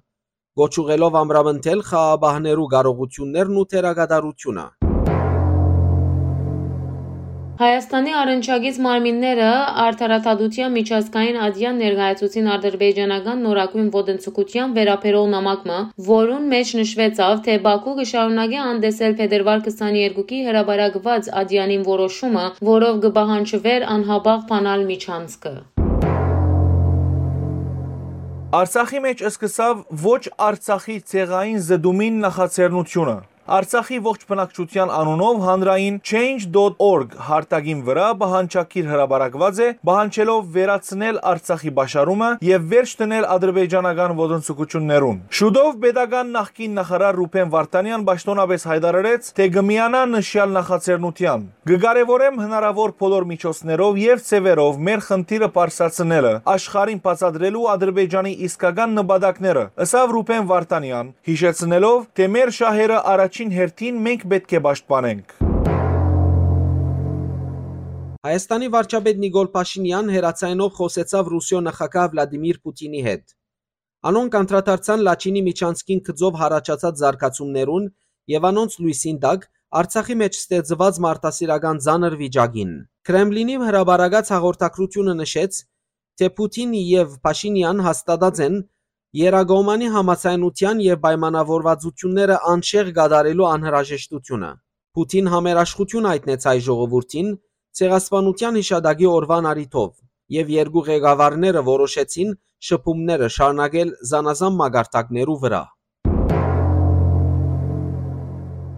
կոչ ուղղելով ամրապնդել խաղաղապահներու կարողութիւններն ու դերակատարությունը։ Հայաստանի առնչակից մարմինները Արդարադատության միջազգային ատեան ներկայացուցին ադրբեջանական նորագոյն ոտնձգութեան վերաբերող նամակ մը, որուն մէջ նշուեցաւ, թէ Բաքու կը շարունակէ անտեսել փետրուար քսաներկուի հրապարակուած ատեանին որոշումը, որով կը պահանջուէր անհապաղ բանալ միջանցքը։ Արցախի մէջ սկսաւ ոչ Արցախի ցեղային զտումին նախաձեռնութիւնը։ Արցախի ողջ բնակչութեան անունով հանրային Change dot org հարթակին վրայ պահանջագիր հրապարակուած է, պահանջելով վերացնել Արցախի պաշարումը եւ վերջ դնել ադրբեջանական ոտնձգութիւններուն։ Շուտով պետական նախկին նախարար Ռուբեն Վարդանեան պաշտօնապէս յայտարարեց, թէ կը միանայ նշեալ նախաձեռնութեան։ «Կը կարեւորեմ հնարաւոր բոլոր միջոցներով եւ ձեւերով մեր խնդիրը պարզացնելը, աշխարհին բացատրելու Ադրբեջանի իսկական նպատակները», ըսաւ Ռուբեն Վարդանեան, յիշեցնելով, թէ մեր շահերը առաջին հերթին մենք պէտք է պաշտպանենք։ Հայաստանի վարչապետ Նիկոլ Փաշինեան հեռաձայնով խօսեցաւ Ռուսիոյ նախագահ Վլադիմիր Պուտինի հետ։ Անոնք անդրադարձան Լաչինի միջանցքին գծով յառաջացած զարգացումներուն եւ անոնց լոյսին տակ Արցախի մէջ ստեղծուած մարդասիրական ծանր վիճակին։ Քրեմլինի հրապարակած հաղորդագրութիւնը նշեց, թէ Պուտին եւ Փաշինեան հաստատած են Երակոմանի համաձայնութեան եւ պայմանավորվածությունները անշեղ կատարելու անհրաժեշտութիւնը։ Պուտին համերաշխութիւն յայտնեց հայ ժողովուրդին Ցեղասպանութեան յիշատակի օրուան առիթով եւ երկու ղեկավարները որոշեցին շփումները շարունակել զանազան մակարդակներու վրայ։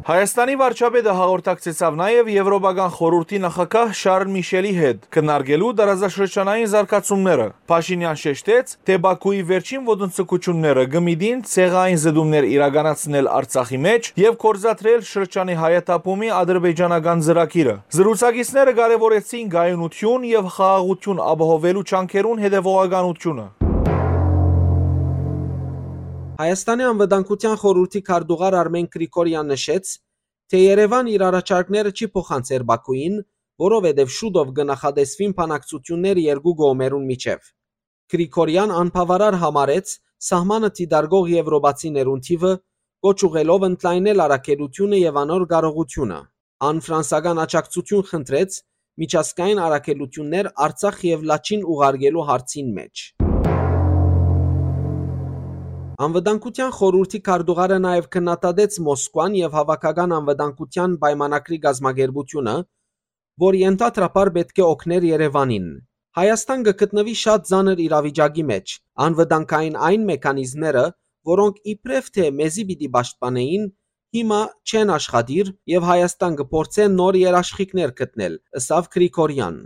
Հայաստանի վարչապետը հաղորդակցեցաւ նաեւ Եվրոպական խորհուրդի նախագահ Շարլ Միշելի հետ, քննարկելու տարածաշրջանային զարգացումները։ Փաշինեան շեշտեց, թէ Բաքուի վերջին ոտնձգությունները կը միտին ցեղային զտումներ իրականացնել Արցախի մէջ եւ գործադրել շրջանի հայաթափումի ադրբեջանական ծրագիրը։ Զրուցակիցները կարեւորեցին կայունութիւն եւ խաղաղութիւն ապահովելու ջանքերուն հետեւողականությունը։ Հայաստանի Անվտանգության խորհուրդի քարտուղար Արմեն Գրիգորեան նշեց, թէ Երեւան իր առաջարկները չի փոխանցեր Բաքուին, որովհետեւ շուտով կը նախատեսուին բանակցություններ երկու կողմերուն միջեւ։ Գրիգորեան անբաւարար համարեց սահմանը դիտարկող եվրոպացիներուն թիւը, կոչ ուղղելով ընդլայնել առաքելութիւնը եւ անոր կարողութիւնը։ Ան ֆրանսական աջակցութիւն խնդրեց միջազգային առաքելութիւններ Արցախ եւ Լաչին ուղարկելու հարցին մէջ։ Անվտանգության խորհուրդի քարտուղարը նաեւ քննադատեց Մոսկուան եւ Հաւաքական անվտանգության պայմանագրի կազմակերպութիւնը, որ ենթադրաբար պէտք է օգներ Երեւանին։ Հայաստան կը գտնուի շատ ծանր իրավիճակի մէջ։ Անվտանգային այն մեքանիզմները, որոնք իբրեւ թէ մեզի պիտի պաշտպանէին, հիմա չեն աշխատիր եւ Հայաստան կը փորձէ նոր երաշխիքներ գտնել, ըսաւ Գրիգորեան։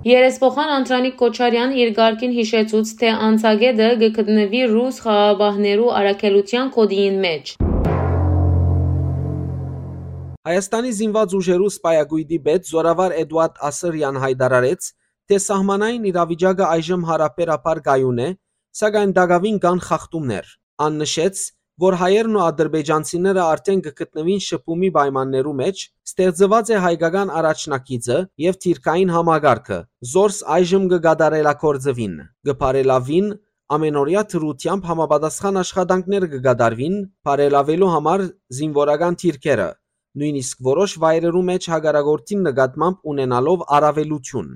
Երեսփոխան Անդրանիկ Քոչարեան իր կարգին յիշեցուց, թէ անցակէտը կը գտնուի ռուս խաղաղապահներու առաքելութեան գօտիին մէջ։ Հայաստանի զինուած ուժերու սպայակոյտի պետ զօրավար Էդուարդ Ասրեան յայտարարեց, թէ սահմանային իրավիճակը այժմ յարաբերաբար կայուն է, սակայն տակաւին կան խախտումներ։ Ան նշեց, որ հայերն ու ադրբեջանցիները արդէն կը գտնուին շփումի պայմաններու մէջ, ստեղծուած է հայկական առաջնագիծը եւ թիրքային համակարգը, զորս այժմ կը կատարելագործուին, կը բարելաւին, ամենօրեայ դրութեամբ համապատասխան աշխատանքներ կը կատարուին, բարելաւելու համար զինուորական թիրքերը, նոյնիսկ որոշ վայրերու մէջ հակառակորդին նկատմամբ ունենալով առավելութիւն։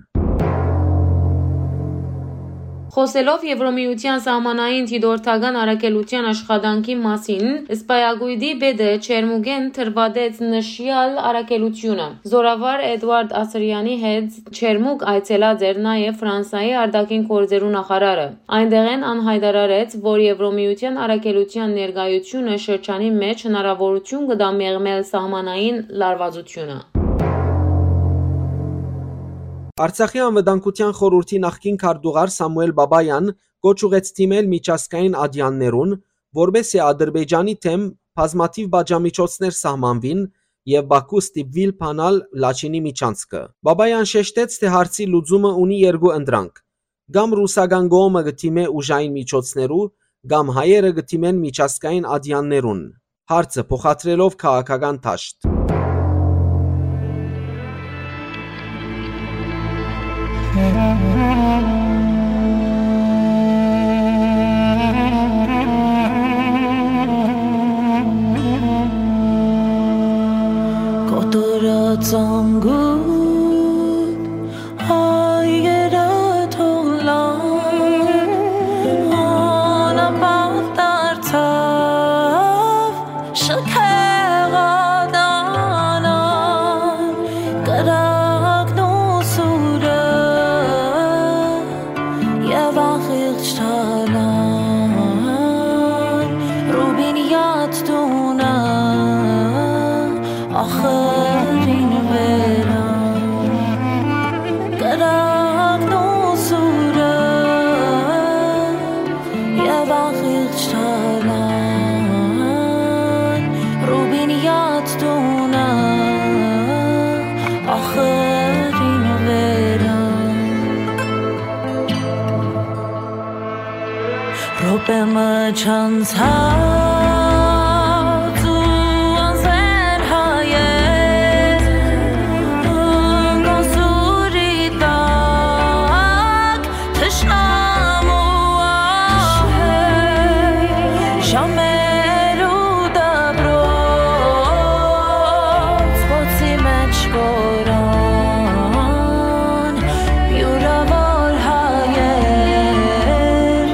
Խօսելով Եվրոմիութեան սահմանային դիտորդական առաքելութեան աշխատանքի մասին, սպայակոյտի պետը ջերմուկէն դրուատեց նշեալ առաքելութիւնը։ Զօրավար Էդուարդ Ասրեանի հետ ջերմուկ այցելած էր նաեւ Ֆրանսայի արտաքին գործերու նախարարը։ Այնտեղէն ան յայտարարեց, որ Եվրոմիութեան առաքելութեան ներկայությունը շրջանի մէջ հնարաւորութիւն կը տայ մեղմել սահմանային լարուածութիւնը։ Արցախի անվտանգութեան խորհուրդի նախկին քարտուղար Սամուէլ Բաբաեան կոչ ուղղեց դիմել միջազգային ատեաններուն, որպէս զի Ադրբեջանի դէմ բազմաթիւ պատժամիջոցներ սահմանուին եւ Բաքու ստիպուի բանալ Լաչինի միջանցքը։ Բաբաեան շեշտեց, թէ հարցի լուծումը ունի երկու ընտրանք. կամ ռուսական կողմը կը դիմէ ուժային միջոցներու, կամ հայերը կը դիմեն միջազգային ատեաններուն։ Հարցը փոխադրելով քաղաքական դաշտ։ Կոտորած անգութ հայերը թողլան, անապատ դարձաւ շքեղատանան, կրակն ու սուրը եւ ախիղճ թալան, Ռուբինյաց տունը ախրին վերան, կրակն ու սուրը եւ ախիղճ թալան, Ռուբինյաց տունը ախրին վերան։ Րոպէ մը չանցած ու անզէն հայեր, կոսուրի տակ թշնամու ահեր, ժամերու դպրոց, խոցի մէջ կորան յուրաւոր հայեր,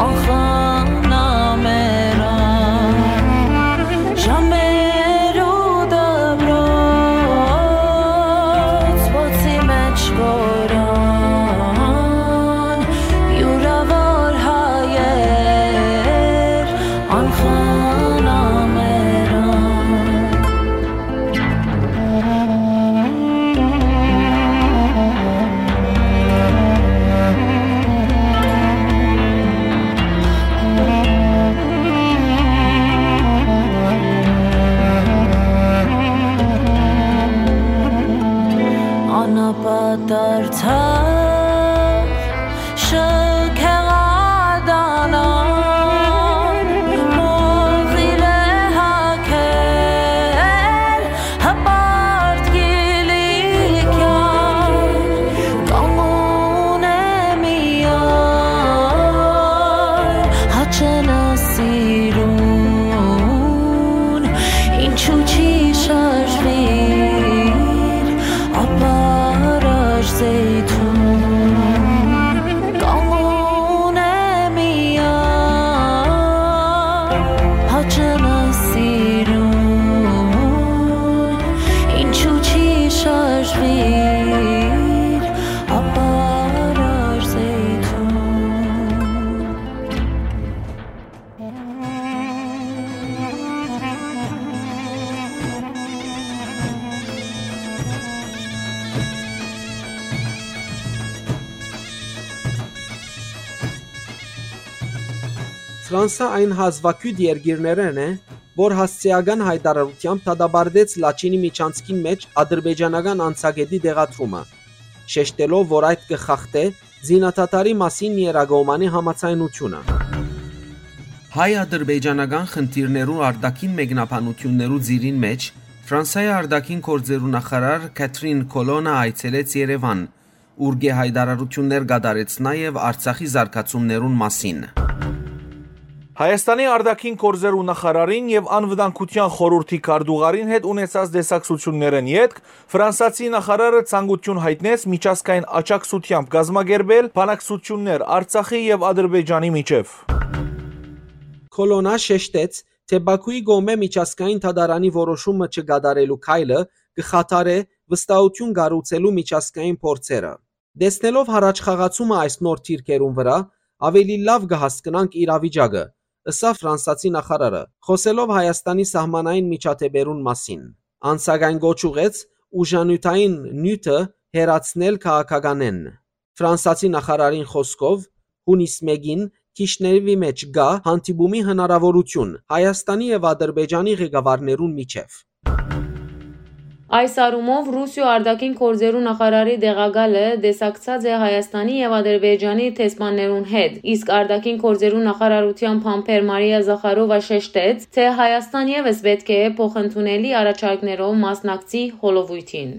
անխնամերան, ժամերու դպրոց, խոցի մէջ կորան յուրաւոր հայեր, անխնամերան։ Անապատարդար շքեղատանան, մոխիրե հագեր, հպարտ կիլիկյան, կամուն է միայն, հաչենը սիրուն, ինչու չի շարժվիր, ապարար զեյթուն, կամուն Ֆրանսա այն հազուագիւտ երկիրներէն է, որ հասցեական յայտարարութեամբ դատապարտեց Լաչինի միջանցքին մէջ ադրբեջանական անցակէտի տեղադրումը, շեշտելով, որ այդ կը խախտէ զինադադարի մասին Երակոմանի համաձայնութիւնը։ Հայ-ադրբեջանական խնդիրներու արտաքին մեկնաբանութիւններու ծիրին մէջ Ֆրանսայի արտաքին գործերու նախարար Քաթրին Քոլոնա այցելեց Երեւան, ուր կը յայտարարութիւններ կատարեց նաեւ Արցախի զարգացումներուն մասին։ Հայաստանի արտաքին գործերու նախարարին եւ անվտանգության խորհրդի քարտուղարին հետ ունեցած տեսակցութիւններէն ետք Ֆրանսացի նախարարը ցանկութիւն յայտնեց միջազգային աջակցութեամբ կազմակերպել բանակցութիւններ Արցախի եւ Ադրբեջանի միջեւ։ Քոլոնա շեշտեց, թէ Բաքուի կողմէ միջազգային դատարանի որոշումը չկատարելու քայլը կը խաթարէ վստահութիւն կառուցելու միջազգային փորձերը։ Տեսնելով յառաջխաղացումը այս նոր դիրքերուն վրայ, աւելի լաւ կը հասկնանք իրավիճակը, ըսաւ ֆրանսացի նախարարը, խօսելով Հայաստանի սահմանային միջադէպերուն մասին։ Ան սակայն կոչ ուղղեց ուժանիւթային նիւթը հեռացնել քաղաքականէն։ Ֆրանսացի նախարարին խօսքով, յունիս մէկին Քիշնեւի մէջ կայ հանդիպումի հնարաւորութիւն Հայաստանի եւ Ադրբեջանի ղեկավարներուն միջեւ։ Այս առումով Ռուսիոյ արտաքին գործերու նախարարի տեղակալը տեսակցած է Հայաստանի եւ Ադրբեջանի դեսպաններուն հետ, իսկ արտաքին գործերու նախարարութեան բանբեր Մարիա Զախարովա շեշտեց, թէ Հայաստան եւս պէտք է փոխընդունելի առաջարկներով մասնակցի հոլովոյթին։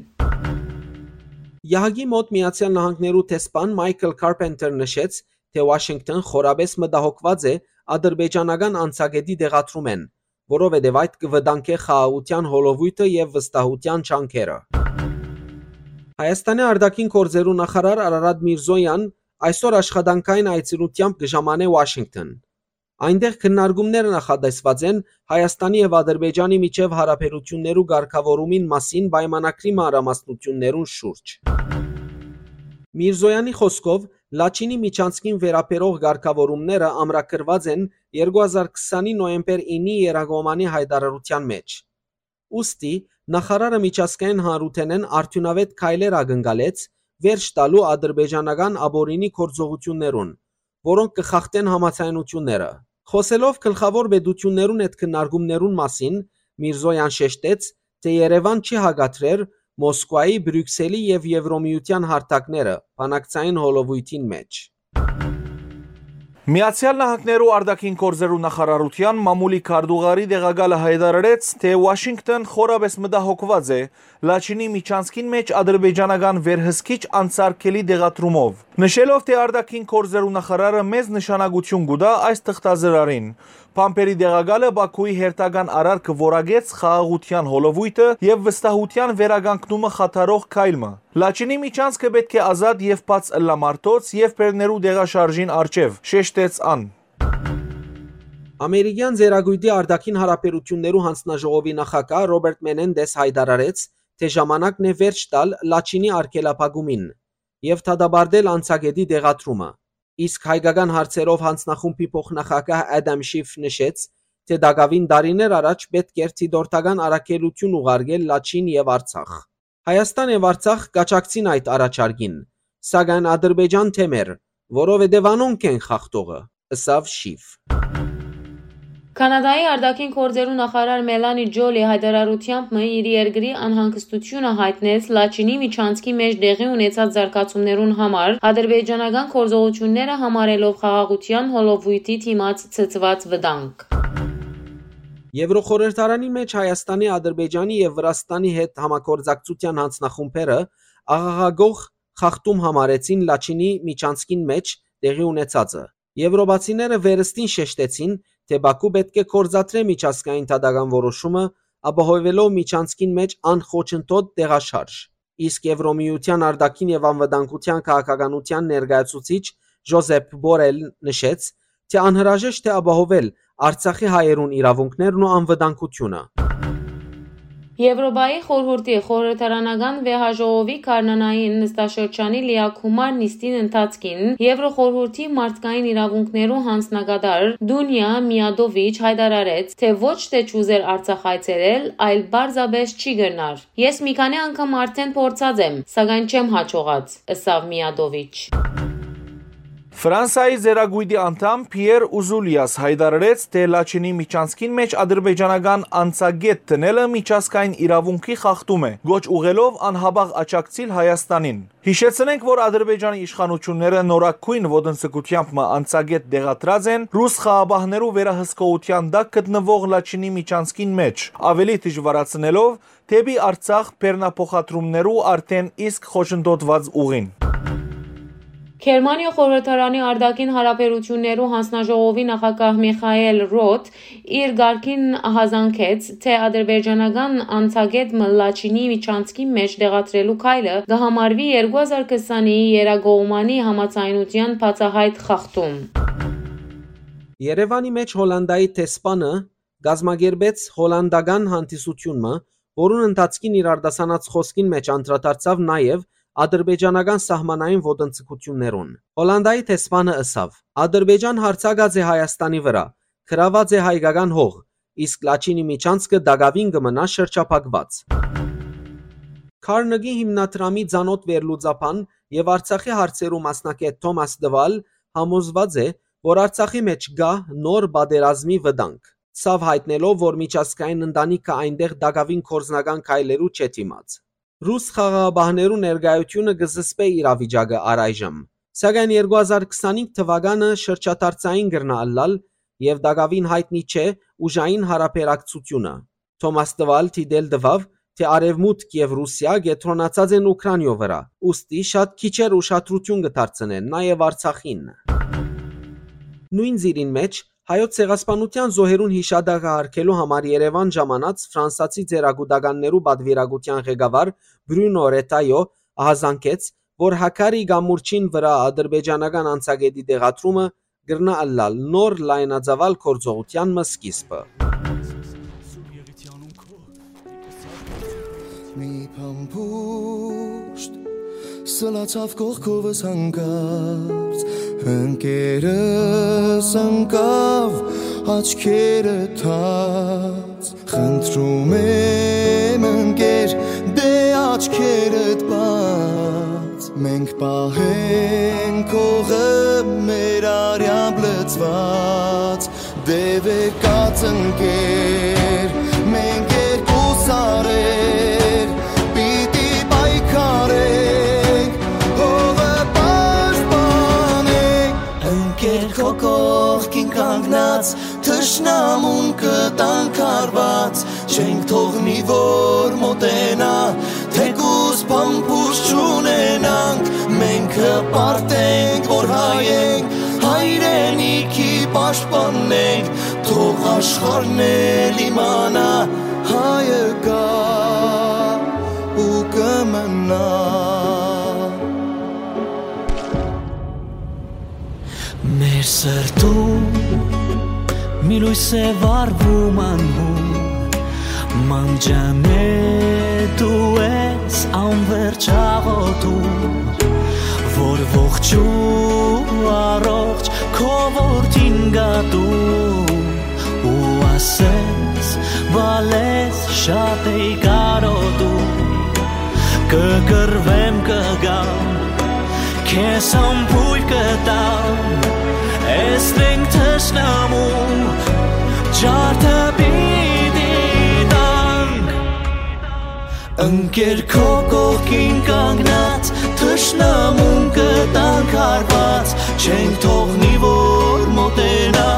Եհակի մօտ Միացեալ Նահանգներու դեսպան Մայքլ Քարպենտեր նշեց, թէ Ուաշինկթոն խորապէս մտահոգուած է ադրբեջանական անցակէտի տեղադրումէն, որովհետեւ այդ կը վտանգէ խաղաղութեան հոլովոյթը եւ վստահութեան ջանքերը։ Հայաստանի արտաքին գործերու նախարար Արարատ Միրզոյան այսօր աշխատանքային այցելութեամբ կը ժամանէ Ուաշինկթոն։ Այնտեղ քննարկումները նախատեսուած են Հայաստանի եւ Ադրբեջանի միջեւ յարաբերութիւններու կարգաւորումին մասին պայմանագրի մանրամասնութիւններուն շուրջ։ Միրզոյանի խօսքով, Լաչինի միջանցքին վերաբերող կարգաւորումները ամրագրուած են երկու հազար քսանի նոյեմբեր իննի Երակոմանի յայտարարութեան մէջ։ Ուստի, նախարարը միջազգային հանրութենէն արդիւնաւէտ քայլեր ակնկալեց վերջ տալու ադրբեջանական ապօրինի գործողութիւններուն, որոնք կը խախտեն համաձայնութիւնները։ Խօսելով գլխաւոր պետութիւններուն հետ քննարկումներուն մասին, Միրզոյան շեշտեց, թէ Երեւան չի հակադրեր Մոսկուայի, Բրիւքսելի եւ Եվրոմիութեան հարթակները բանակցային հոլովոյթին մէջ։ Միացեալ Նահանգներու արտաքին գործերու նախարարութեան մամուլի քարտուղարի տեղակալը յայտարարեց, թէ Ուաշինկթոն խորապէս մտահոգուած է Լաչինի միջանցքին մէջ ադրբեջանական վերհսկիչ անսարքելի տեղադրումով, նշելով, թէ արտաքին գործերու նախարարը մեծ նշանակութիւն կու տայ այս թղթազրարին։ Բանբերի տեղակալը Բաքուի հերթական արարքը որակեց խաղաղութեան հոլովոյթը եւ վստահութեան վերականգնումը խաթարող քայլ մը։ Լաչինի միջանցքը պէտք է ազատ եւ բաց ըլլայ մարդոց եւ բեռներու տեղաշարժին առջեւ, շեշտեց ան։ Ամերիկեան Ծերակոյտի արտաքին յարաբերութիւններու յանձնաժողովի նախագահ Ռոբերտ Մենենդես յայտարարեց, թէ ժամանակն է վերջ տալ Լաչինի արգելափակումին եւ դատապարտել անցակէտի տեղադրումը։ Իսկ հայկական հարցերով յանձնախումբի փոխնախագահ Ադամ Շիֆ նշեց, թէ տակաւին տարիներ առաջ պէտք էր դիտորդական առաքելութիւն ուղարկել Լաչին եւ Արցախ։ Հայաստան եւ Արցախ կաջակցին այդ առաջարկին, սակայն Ադրբեջան դէմ էր, որովհետեւ անոնք են խախտողը, ըսաւ Շիֆ։ Կանադայի արտաքին գործերու նախարար Մելանի Ջոլի յայտարարութեամբ մը իր երկրի անհանգստությունը յայտնեց Լաչինի միջանցքի մէջ տեղի ունեցած զարգացումներուն համար, ադրբեջանական գործողությունները համարելով խաղաղութեան հոլովոյթի դիմաց ցցուած վտանգ։ Եվրոխորհրդարանի մէջ Հայաստանի, Ադրբեջանի եւ Վրաստանի հետ համագործակցութեան յանձնախումբերը աղաղակող խախտում համարեցին Լաչինի միջանցքին մէջ տեղի ունեցածը։ Եվրոպացիները վերստին շեշտեցին, թէ Բաքու պէտք է գործադրէ միջազգային դատական որոշումը, ապահովելով միջանցքին մէջ անխոչընդոտ տեղաշարժ։ Իսկ Եվրոմիութեան արտաքին եւ անվտանգութեան քաղաքականութեան ներկայացուցիչ Ժոզեփ Բորել նշեց, թէ անհրաժեշտ է ապահովել Արցախի հայերուն իրաւունքներն ու անվտանգութիւնը։ Եվրոպայի խորհուրդի խորհրդարանական վեհաժողովի գարնանային նստաշրջանի լիակումար նիստին ընթացքին Եվրոխորհուրդի մարդկային իրաւունքներու յանձնակատար Դունիա Միադովիչ յայտարարեց, թէ ոչ թէ չուզեր Արցախ այցելել, այլ պարզապէս չի կրնար։ «Ես մի քանի անգամ արդէն փորձած եմ, սակայն չեմ յաջողած», ըսաւ Միադովիչ։ Ֆրանսայի Ծերակոյտի անդամ Փիեր Ուզուլիաս յայտարարեց, թէ Լաչինի միջանցքին մէջ ադրբեջանական անցակետ դնելը միջազգային իրաւունքի խախտում է, կոչ ուղղելով անհապաղ աջակցիլ Հայաստանին։ Յիշեցնենք, որ Ադրբեջանի իշխանութիւնները նորագոյն ոտնձգութեամբ մը անցակետ տեղադրած են ռուս խաղապահներու վերահսկողութեան տակ գտնուող Լաչինի միջանցքին մէջ, աւելի դժուարացնելով դէպի Արցախ բեռնափոխադրումներու արդէն իսկ խոչընդոտուած ուղին։ Գերմանիոյ խորհրդարանի արտաքին հարաբերութիւններու յանձնաժողովի նախագահ Միխայէլ Ռոթ իր կարգին յազանգեց, թէ ադրբեջանական անցակետ մը Լաչինի միջանցքի մէջ տեղադրելու քայլը կը համարուի երկու հազար քսանի երակողմանի համաձայնութեան բացայայտ խախտում։ Երեւանի մէջ Հոլանտայի դեսպանը կազմակերպեց հոլանտական հանդիսութիւն մը, որուն ընթացքին իր արտասանած խօսքին մէջ անդրադարձաւ նաեւ ադրբեջանական սահմանային ոտնձգութիւններուն։ Հոլանտայի դեսպանը ըսաւ. «Ադրբեջան յարձակած է Հայաստանի վրայ, գրաւած է հայկական հող, իսկ Լաչինի միջանցքը տակաւին կը մնայ շրջափակուած»։ Քարնկի հիմնադրամի ծանօթ վերլուծաբան եւ Արցախի հարցերու մասնագէտ Թոմաս Տվալ համոզուած է, որ Արցախի մէջ կայ նոր պատերազմի վտանգ։ Ցաւ յայտնելով, որ միջազգային ընտանիքը այնտեղ տակաւին գործնական քայլերու չէ դիմած։ Ռուս խաղաղապահներու ներկայութիւնը կը զսպէ իրավիճակը առայժմ, սակայն երկու հազար քսանինգ թուականը շրջադարձային կրնայ ըլլալ եւ տակաւին յայտնի չէ ուժային յարաբերակցութիւնը։ Թոմաս Տվալ դիտել տուաւ, թէ Արեւմուտք եւ Ռուսիա կեդրոնացած են Ուքրանիոյ վրայ, ուստի շատ քիչեր ուշադրութիւն կը դարձնեն նաեւ Արցախին։ Նոյն ծիրին մէջ Հայոց ցեղասպանութեան զոհերուն յիշատակը յարգելու համար Երեւան ժամանած ֆրանսացի ծերակուտականներու պատուիրակութեան ղեկավար Բրունո Ռետայօ յազանգեց, որ Հաքարի կամուրջին վրայ ադրբեջանական անցակետի տեղադրումը կրնայ ըլլալ նոր լայնածաւալ գործողութեան մը սկիզբը։ Մի փամփուշտ սլացաւ կողքովս հանկարծ, ընկերս ընկաւ աչքերը թած։ Խնդրում եմ, ընկեր, դե աչքերդ բաց, մենք պահենք հողը մեր արեամբ լցված, դե վեր կաց, ընկեր, մենք երկու սարեր պիտի պայքարենք, հողը պաշտպանենք, ընկեր, քո կողքին կանգնած, թշնամուն կտանք հարված, չենք թողնի, որ մոտենայ, թեկուզ փամփուշտ չունենանք, մենք կպարտենք, որ հայ ենք, հայրենիքի պաշտպանենք, թող աշխարհն էլ իմանայ, հայը կայ ու կը մնայ։ Մեր սրտում մի լոյս է վառվում անհուն, մանջանե դու ես անվերջ աղոթում, որ ողջ ու առողջ քո որդին գատում, ու ասես, բալես շատ էի կարոտում, կը կռվեմ, կը գամ, քեզ ամբոյր կտամ, էս մենք թշնամու ջարդը պիտի տանք։ Ընկեր, քո կողքին կանգնած, թշնամուն կտանք հարված, չենք թողնի, որ մոտենա,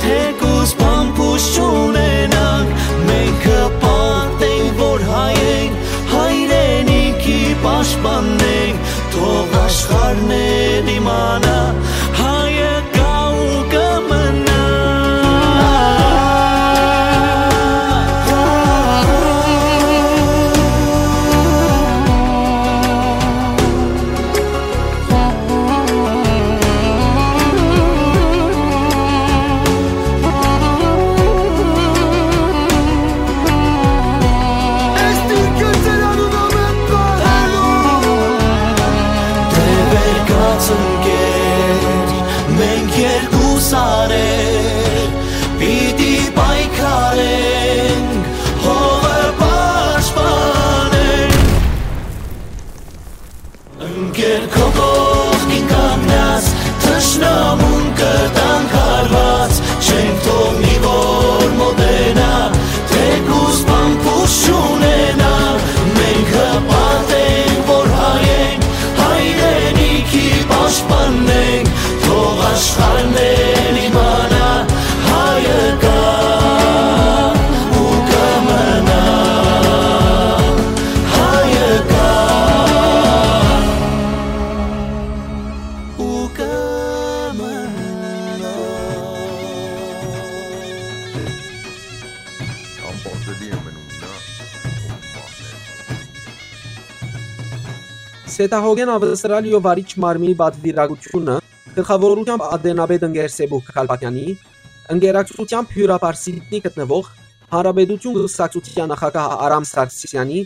թեկուզ փամփուշտ չունենանք, մենք կպարտենք, որ հայ ենք, հայրենիքի պաշտպանենք, թող աշխարհն է դիմանա, հայը կա ու կմնա։ Մենք երկու սարեր պիտի պայքարենք, հողը պաշտպանենք։ Ընկեր, քո կողքին կանգնած, Դաշնամուն կտանք հարուած, չենք թող մի որ մոտենայ, թէ կուզպան փուշ չունենայ, մենք հպարտ ենք որ հայ ենք, հայրենիքի պաշտպանն ենք, թող աշխարհն էլ իմանայ, հայը կայ ու կմնայ, հայը կայ ու կմնայ։ Անպատելի է մնում նա, ով մահն է։ Սեդահոգէն Աւստրալիոյ վարիչ մարմինի պատուիրակութիւնը գլխաւորութեամբ ատենապետ ընկեր Սեբուհ Գալպակեանի, ընկերակցութեամբ հիւրապար Սիդնի գտնուող Հանրապետութիւն կուսակցութեան նախագահ Արամ Սարգսեանի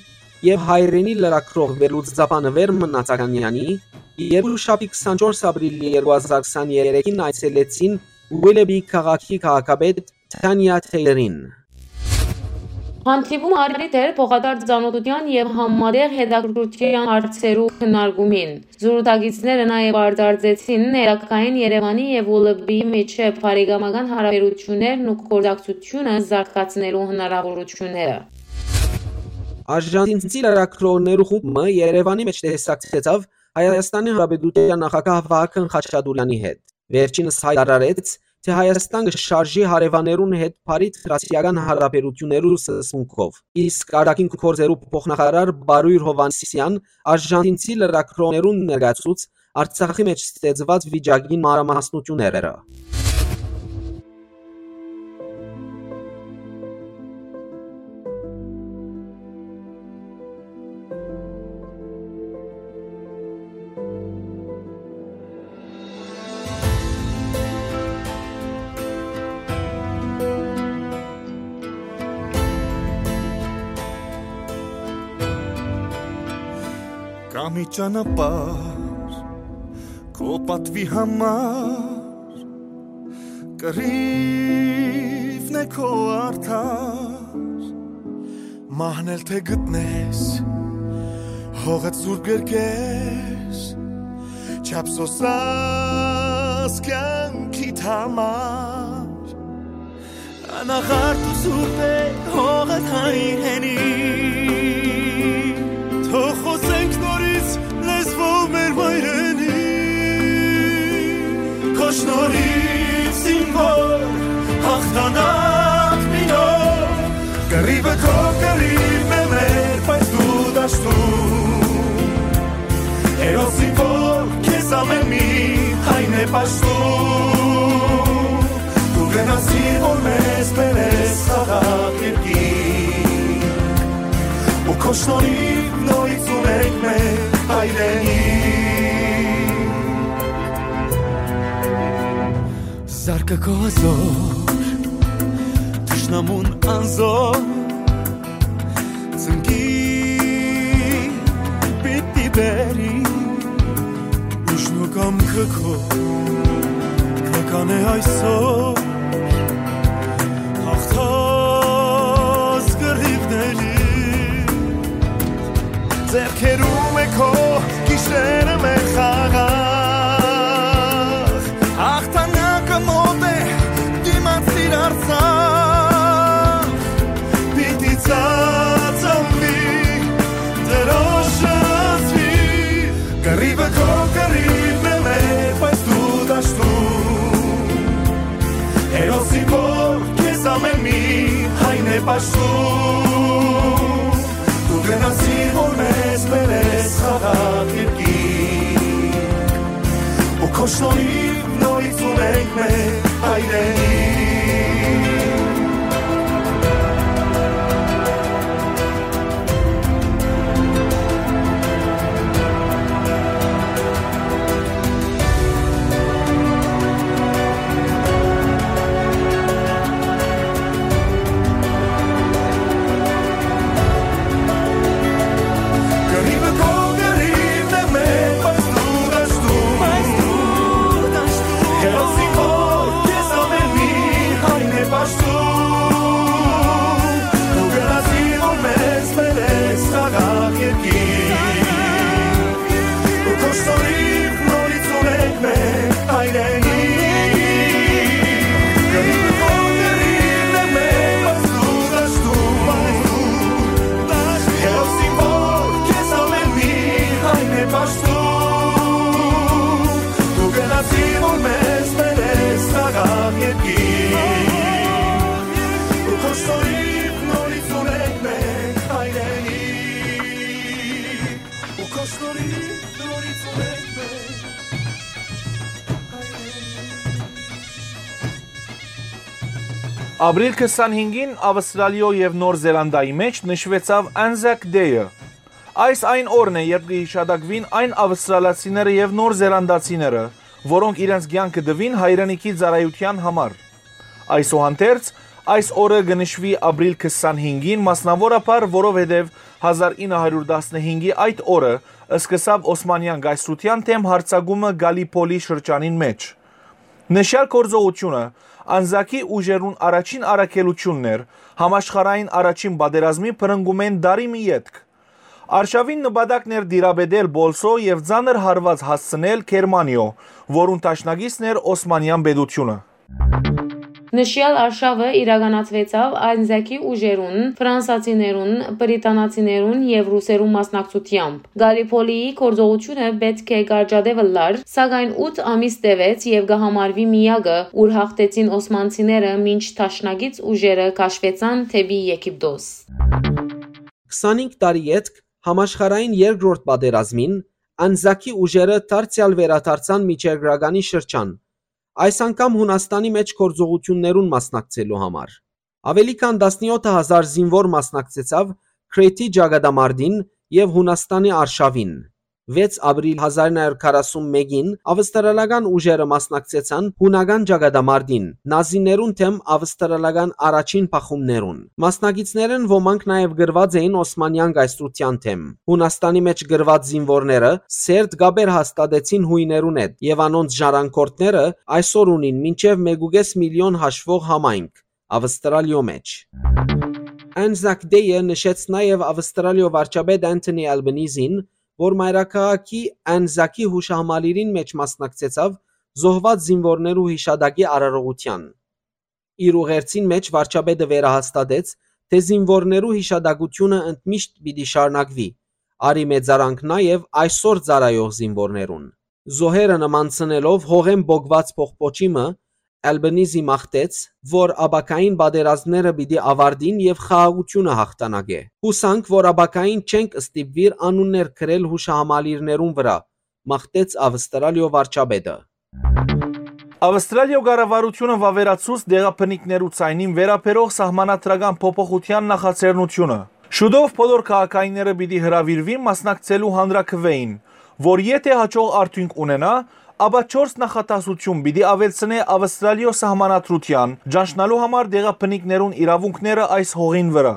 եւ հայրենի լրագրող վերլուծաբան Վեր Մնացականեանի, երկուշաբթի քսանչորս ապրիլի երկու հազար քսաներեքին այցելեցին Ուիլեբի քաղաքի քաղաքապետ Թանիա Թեյլերին։ Հանդիպումը առիթ էր փոխադարձ ծանօթութեան եւ համատեղ հետաքրքրութեան հարցերու քննարկումին։ Զրուցակիցները նաեւ արտարծեցին ներակային Երեւանի եւ Ուլեբի միջեւ բարեկամական հարաբերութիւններն ու գործակցութիւնը զարգացնելու հնարաւորութիւնները։ Արժանթինցի լրագրողներու խումբը Երեւանի մէջ տեսակցեցաւ Հայաստանի Հանրապետութեան նախագահ Վահագն Խաչատուրեանի հետ։ Վերջինս յայտարարեց, թէ Հայաստան կը շարժի հարեւաններուն հետ բարի դրացիական հարաբերութիւններու սկզբունքով, իսկ արտաքին գործերու փոխնախարար Բարոյր Հովհաննիսեան արժանթինցի լրագրողներուն ներկայացուց Արցախի մէջ ստեղծուած վիճակին մանրամասնութիւնները։ Կա մի ճանապարհ քո պատուի համար, կռիւն է քո արդար, մահն էլ թէ գտնես, հողդ սուրբ կերկես, չափ սոսած կեանքիդ համար։ Անաղարտ ու սուրբ է հողդ հայրենի, թող խօսենք նորից լեզվով մեր մայրենի։ Քո շնորհիվ զինվոր հաղթանակ մի նոր, կռիւը քո կռիւն է մեր, բայց դու դաշտում, հերոս զինվոր քեզ ամէն մի հայն է պաշտում։ Դու գնացիր, որ մեզ բերես խաղաղ երկիր, ու քո շնորհիվ նորից ունենք մեր հայրենիք։ Զարկը քո հազոր, թշնամուն անզոր, ծնկի պիտի բերի, ուժն ու կամքը քո կը կանէ այսօր, հաղթած կռիւների, ձեռքերում է քո գիշերը մեր խաղաղ, հաղթանակը մոտ է, դիմացիր Արցախ, պիտի ծածանվի, դրոշը զգի, կռիվը քո կռիվն է մեր, բայց դու դաշտում, հերոսի որ քեզ ամեն մի հայն է պաշտում, դու գնացիր, որ մեզ բերես խաղաղ երկիր, ու քո շնորհիվ նորից ունենք մեր հայրենիք։ Կռիվը քո կռիվն է մեր, բայց դու դաշտում, բայց դու Աստուր, դու գնացի, որ մեզ բերես սաղաղ երկիր, ու քո շնորհիվ նորից ունենք մենք հայրենիք, ու քո շնորհիվ նորից ունենք մենք հայրենիք։ Ապրիլ քսանհինգին Աւստրալիոյ եւ Նոր Զելանդիայի մէջ նշուեցաւ Anzac Day-ը։ Այս այն օրն է, երբ կը յիշատակուին այն աւստրալացիները եւ նոր զելանդացիները, որոնք իրենց կեանքը տուին հայրենիքի ծառայութեան համար։ Այսուհանդերձ, այս օրը կը նշուի ապրիլ քսանհինգին, մասնաւորաբար որովհետեւ հազար ինը հարիւր տասնհինգի այդ օրը սկսաւ Օսմանեան կայսրութեան դէմ յարձակումը Գալիպոլի շրջանին մէջ։ Նշեալ գործողութիւնը Անզակի ուժերուն առաջին առաքելութիւնն էր, համաշխարհային առաջին պատերազմի բռնկումէն տարի մը ետք։ Արշաւին նպատակն էր տիրապետել Պոլսոյ եւ ծանր հարուած հասցնել Գերմանիոյ, որուն դաշնակիցն էր Օսմանեան պետութիւնը։ Նշեալ արշաւը իրականացուեցաւ Անզակի ուժերուն, ֆրանսացիներուն, բրիտանացիներուն եւ ռուսերուն մասնակցութեամբ։ Գալիպոլիի գործողութիւնը պէտք է կարճատեւ ըլլար, սակայն ութ ամիս տեւեց եւ կը համարուի միակը, ուր յաղթեցին օսմանցիները, մինչ դաշնակից ուժերը քաշուեցան դէպի Եգիպտոս։ Քսանհինգ տարի ետք, համաշխարհային երկրորդ պատերազմին, Անզակի ուժերը դարձեալ վերադարձան Միջերկրականի շրջան, այս անգամ Յունաստանի մէջ գործողութիւններուն մասնակցելու համար։ Աւելի քան տասնեօթ հազար զինուոր մասնակցեցաւ Քրէթի ճակատամարտին եւ Յունաստանի արշաւին։ Վեց ապրիլ հազար ինը հարիւր քառասուն մէկին աւստրալական ուժերը մասնակցեցան յունական ճակատամարտին, նազիներուն դէմ աւստրալական առաջին բախումներուն։ Մասնակիցներէն ոմանք նաեւ կռուած էին Օսմանեան կայսրութեան դէմ։ Յունաստանի մէջ կռուած զինուորները սերտ կապեր հաստատեցին յոյներուն հետ եւ անոնց ժառանգորդները այսօր ունին մինչեւ մէկ ու կէս միլիոն հաշուող համայնք Աւստրալիոյ մէջ։ Anzac Day-ը նշեց նաեւ Աւստրալիոյ վարչապետ Անթոնի Ալբանիզին, որ մայրաքաղաքի Անզակի յուշահամալիրին մէջ մասնակցեցաւ զոհուած զինուորներու յիշատակի արարողութեան։ Իր ուղերձին մէջ վարչապետը վերահաստատեց, թէ զինուորներու յիշատակութիւնը ընդմիշտ պիտի շարունակուի, արի մեծարանք նաեւ այսօր ծառայող զինուորներուն։ Զոհերը նմանցնելով հողէն պոկուած պողպոչի մը, Ալբանիզի մաղթեց, որ ապագային պատերազմները պիտի աւարտին եւ խաղաղութիւնը յաղթանակէ։ Յուսանք, որ ապագային չենք ստիպուիր անուններ գրել յուշահամալիրներուն վրայ, մաղթեց Աւստրալիոյ վարչապետը։ Աւստրալիոյ կառավարութիւնը վաւերացուց դեղաբնիկներու ցայնին վերաբերող սահմանադրական փոփոխութեան նախաձեռնութիւնը։ Շուտով բոլոր քաղաքայինները պիտի հրաւիրուին մասնակցելու հանրաքուէին, որ եթէ յաջող արդիւնք ունենայ, ապա չորս նախադասութիւն պիտի աւելցնէ Աւստրալիոյ սահմանադրութեան, ճանչնալու համար դեղաբնիկներուն իրաւունքները այս հողին վրայ։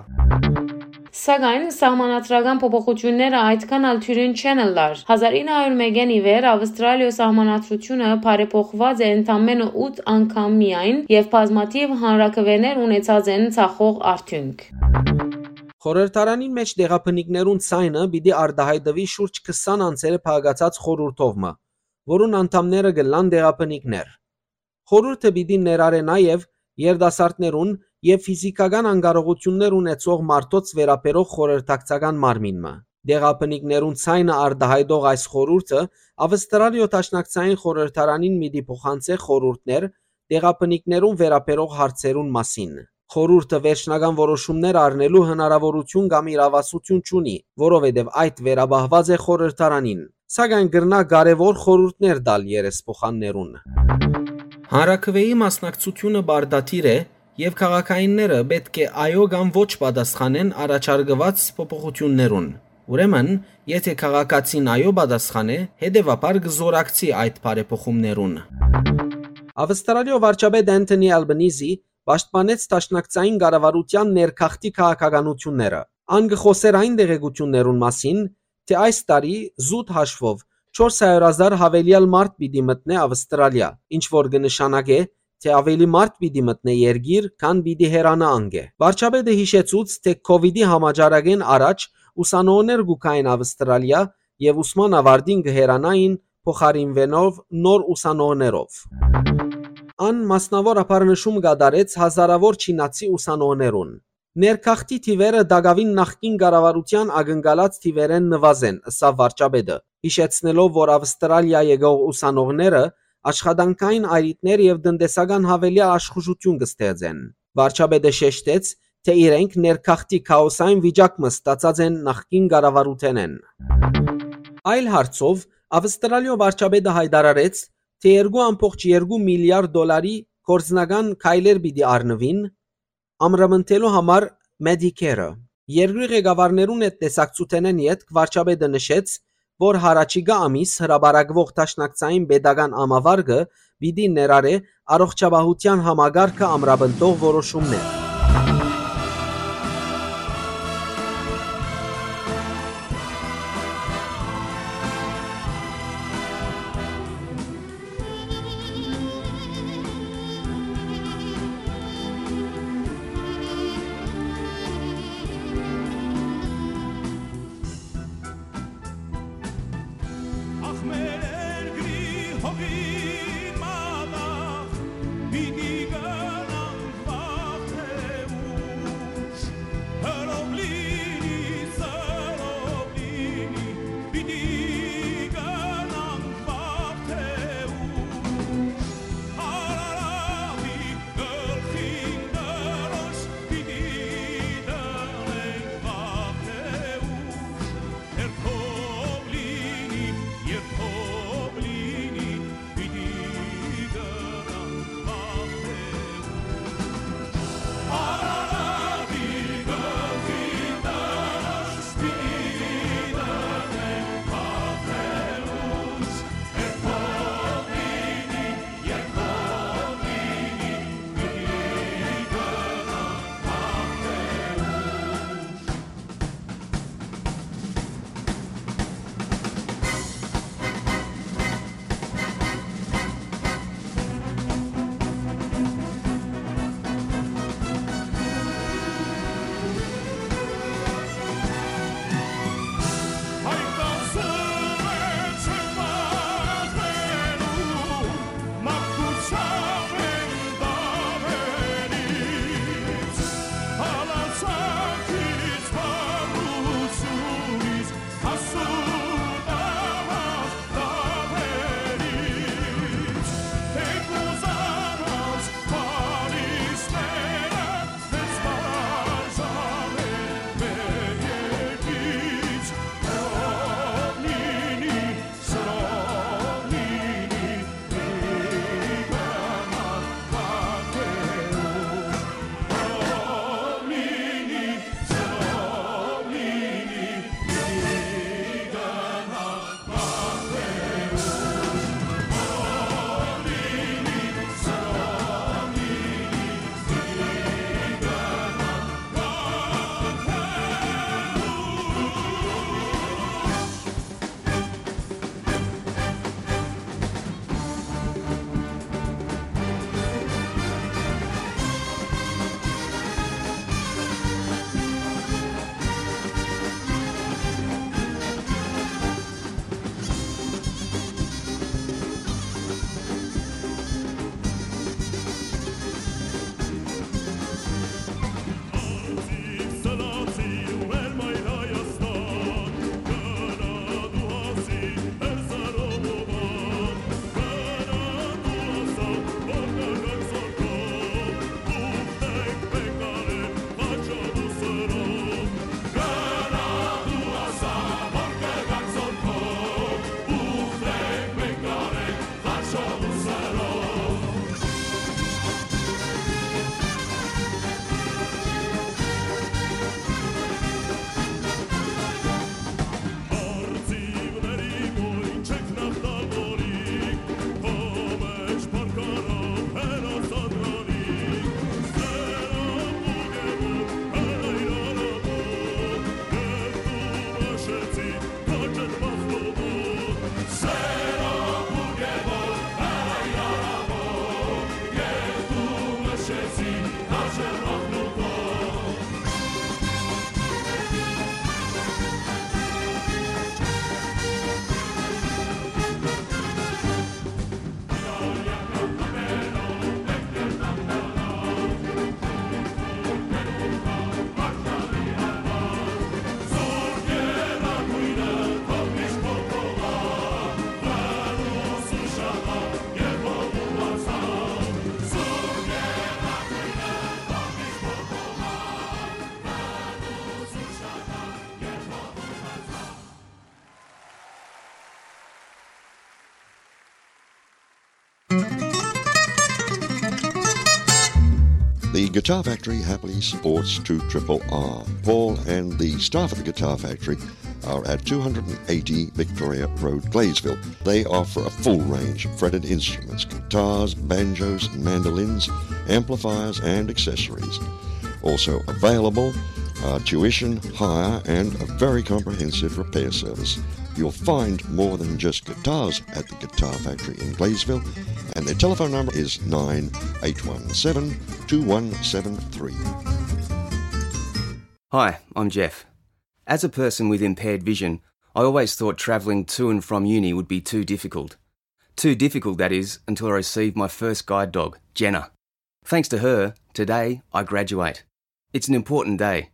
Սակայն սահմանադրական փոփոխութիւնները այդքան ալ թիւրին չեն ըլլար։ Հազար ինը հարիւր մէկէն ի վեր Աւստրալիոյ սահմանադրութիւնը բարեփոխուած է ընդամենը ութ անգամ միայն եւ բազմաթիւ հանրաքուէներ ունեցած են ցախող արդիւնք։ Խորհրդարանին մէջ դեղաբնիկներուն ցայնը պիտի արտայայտուի շուրջ քսան անձերը փակացած խորհուրդով մը, որուն անդամները կ'ըլլան դեղաբնիկներ։ Խորհուրդը պիտի ներառէ նաեւ երիտասարդներուն եւ ֆիզիքական անկարողութիւններ ունեցող մարդոց վերաբերող խորհրդակցական մարմին մը։ Դեղաբնիկներուն ցայնը արտայայտող այս խորհուրդը Աւստրալիոյ Դաշնակցային խորհրդարանին պիտի փոխանցէ խորհուրդներ դեղաբնիկներուն վերաբերող հարցերուն մասին։ Խորհուրդը վերջնական որոշումներ առնելու հնարաւորութիւն կամ իրաւասութիւն չունի, որովհետեւ այդ վերապահուած է խորհրդարանին, սակայն կրնայ կարեւոր խորհուրդներ տալ երեսփոխաններուն։ Հանրաքուէի մասնակցութիւնը պարտադիր է եւ քաղաքայինները պէտք է այո կամ ոչ պատասխանեն առաջարկուած փոփոխութիւններուն։ Ուրեմն, եթէ քաղաքացին այո պատասխանէ, հետեւաբար կը զօրակցի այդ բարեփոխումներուն։ Աւստրալիոյ վարչապետ Անթոնի Ալբանիզի պաշտպանեց դաշնակցային կառավարութեան ներքախտի քաղաքականութիւնները։ Ան կը խօսէր այն տեղեկութիւններուն մասին, թէ այս տարի զուտ հաշուով չորս հարիւր հազար յաւելեալ մարդ պիտի մտնէ Աւստրալիա, ինչ որ կը նշանակէ, թէ աւելի մարդ պիտի մտնէ երկիր, քան պիտի հեռանայ անկէ։ Վարչապետը յիշեցուց, թէ քովիդի համաճարակէն առաջ ուսանողներ կու գային Աւստրալիա եւ ուսման աւարտին կը հեռանային փոխարինուելով նոր ուսանողներով։ Ան մասնաւորաբար նշում կատարեց հազարաւոր չինացի ուսանողներուն։ Ներքախտի թիվերը տակաւին նախկին կառավարութեան ակնկալած թիվերէն նուազ են, ըսաւ վարչապետը, յիշեցնելով, որ Ավստրալիա եկող ուսանողները աշխատանքային այրիթներ եւ տնտեսական յաւելեալ աշխուժութիւն կը ստեղծեն։ Վարչապետը շեշտեց, թէ իրենք ներգաղթի քաոսային վիճակ մը ստացած են նախկին կառավարութենէն։ Այլ հարցով, Ավստրալիոյ վարչապետը յայտարարեց, թէ երկու ամբողջ երկու միլիարդ դոլարի գործնական քայլեր պիտի առնուին, ամրապնդելու համար Medicare-ը։ Երկրի ղեկավարներուն հետ տեսակցութենէն ետք վարչապետը նշեց, որ յառաջիկայ ամիս հրապարակուող դաշնակցային պետական ամավարկը պիտի ներառէ առողջապահութեան համակարգը ամրապնդող որոշումներ։ Ախ, մեր երկրի հողի մատաղ, պիտի գնանք վաղ թե The Guitar Factory happily supports two triple R. Paul and the staff at the Guitar Factory are at two hundred eighty Victoria Road, Gleysville. They offer a full range of fretted instruments, guitars, banjos, mandolins, amplifiers, and accessories. Also available are tuition, hire, and a very comprehensive repair service. You'll find more than just guitars at the Guitar Factory in Gleysville, and their telephone number is nine eight one seven, two one seven three. Hi, I'm Jeff. As a person with impaired vision, I always thought travelling to and from uni would be too difficult. Too difficult, that is, until I received my first guide dog, Jenna. Thanks to her, today I graduate. It's an important day,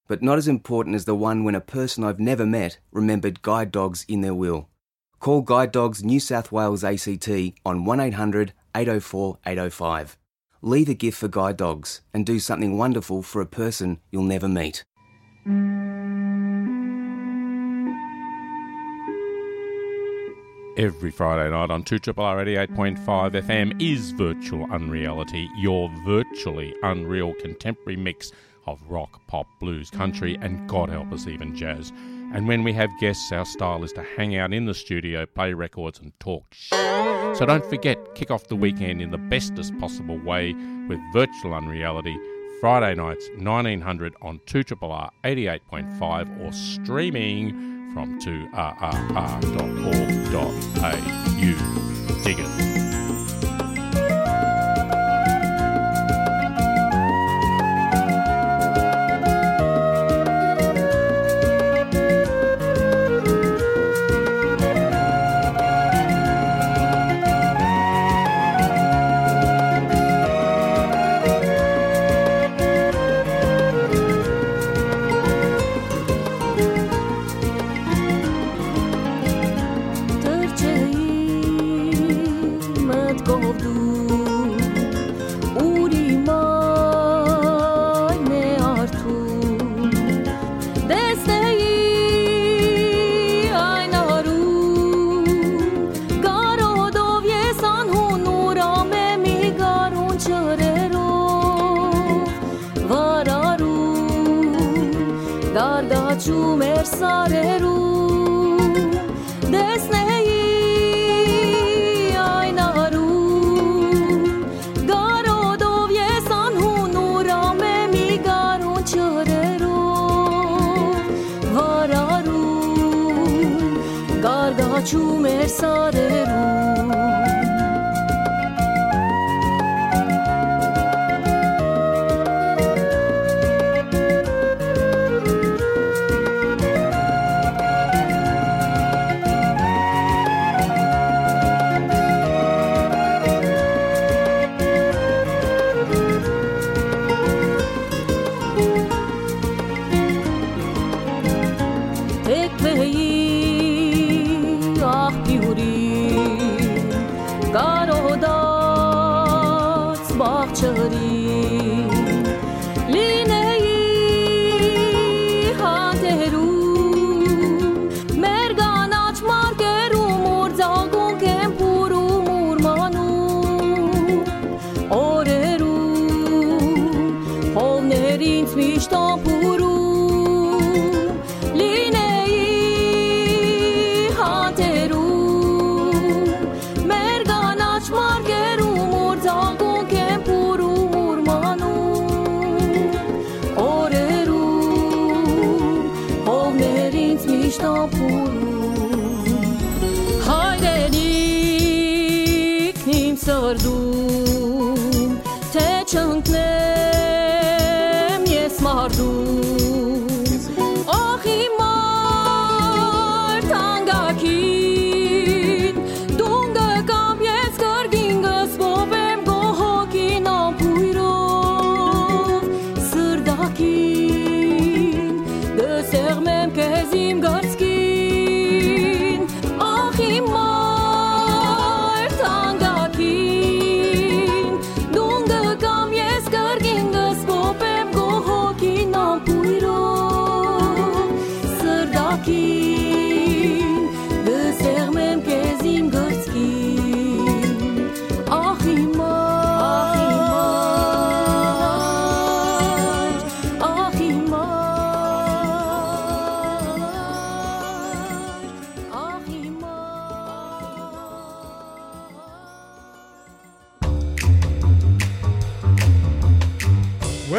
but not as important as the one when a person I've never met remembered guide dogs in their will. Call Guide Dogs New South Wales A C T on one eight hundred, eight oh four, eight oh five. Leave a gift for guide dogs and do something wonderful for a person you'll never meet. Every Friday night on two triple R eighty-eight point five F M is Virtual Unreality, your virtually unreal contemporary mix of rock, pop, blues, country, and God help us, even jazz. And when we have guests, our style is to hang out in the studio, play records, and talk sh-. So don't forget, kick off the weekend in the bestest possible way with Virtual Unreality, Friday nights, nineteen hundred on two triple R eighty-eight point five, or streaming from two R R R dot org dot A U. Dig it. Մտքով դու ուրի մայր մե արթուն, տեսնեի այն արուն, կարոտով ես անհուն ուրամ է մի գարուն չրերով, վարարուն, գարգաչում էր սարերուն, տեսնեի այն արուն, կարոտով ես անհուն ուրամ է մի գարուն չրերով, վարարուն, գարգաչում էր սարերուն։ Թեքվեի աղբիուրի, կարոտած բաղձրի, լինեի հանդերում, մեր կանաչ մարկերում, ուր ձագունք են փուրում, ուրմանում, օրերում, հովներ ինձ միշտ ամփուրում, լինեի հանդերում, մեր կանաչ մարկերում, ուր ձագունք են փուրում, ուրմանում, օրերում, հովներ ինձ միշտ ամփուրում։ Հայրենիքն իմ սրտում, թե չընկնեմ ես մարտում, ախ իմ մայր թանկագին, դուն կգամ ես կրկին, կսպոպեմ քո հոգին ամբույրով, սրտակին, կսեղմեմ քեզ իմ կրծքին, ախ իմ մայր թանկագին, դուն կգամ ես կրկին,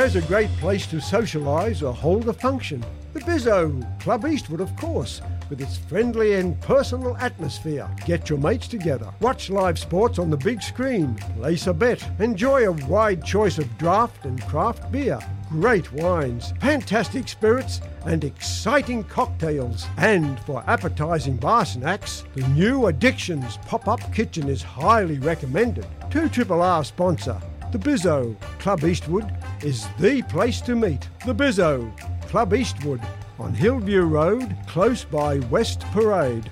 There's a great place to socialise or hold a function. The Bizzo, Club Eastwood, of course, with its friendly and personal atmosphere. Get your mates together, watch live sports on the big screen, place a bet, enjoy a wide choice of draft and craft beer, great wines, fantastic spirits, and exciting cocktails. And for appetising bar snacks, the new Addictions pop-up kitchen is highly recommended. Two Triple R sponsor, the Bizzo, Club Eastwood, is the place to meet. The Bizzo, Club Eastwood, on Hillview Road, close by West Parade.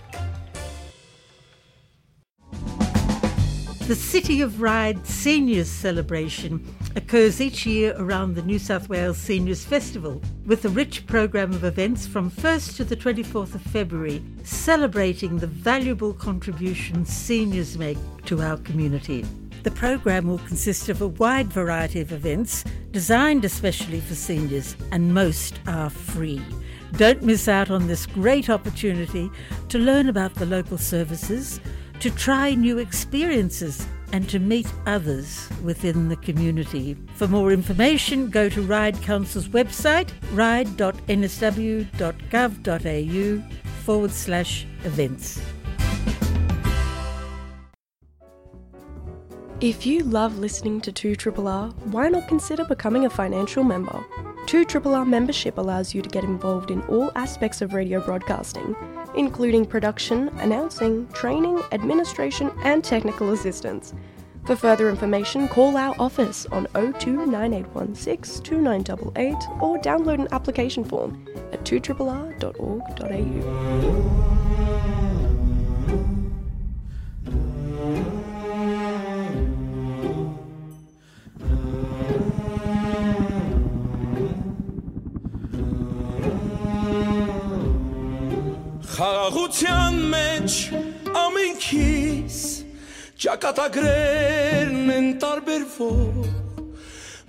The City of Ryde Seniors Celebration occurs each year around the New South Wales Seniors Festival, with a rich programme of events from first to the twenty-fourth of February, celebrating the valuable contributions seniors make to our community. The programme will consist of a wide variety of events designed especially for seniors, and most are free. Don't miss out on this great opportunity to learn about the local services, to try new experiences, and to meet others within the community. For more information, go to Ryde Council's website, ryde dot n s w dot gov dot a u forward slash events. If you love listening to two triple R, why not consider becoming a financial member? two triple R membership allows you to get involved in all aspects of radio broadcasting, including production, announcing, training, administration, and technical assistance. For further information, call our office on oh two nine eight one six two nine eight eight or download an application form at two triple R dot org dot a u. Խաղաղութեան մէջ ամենքիս ճակատագրերն են տարբերվող,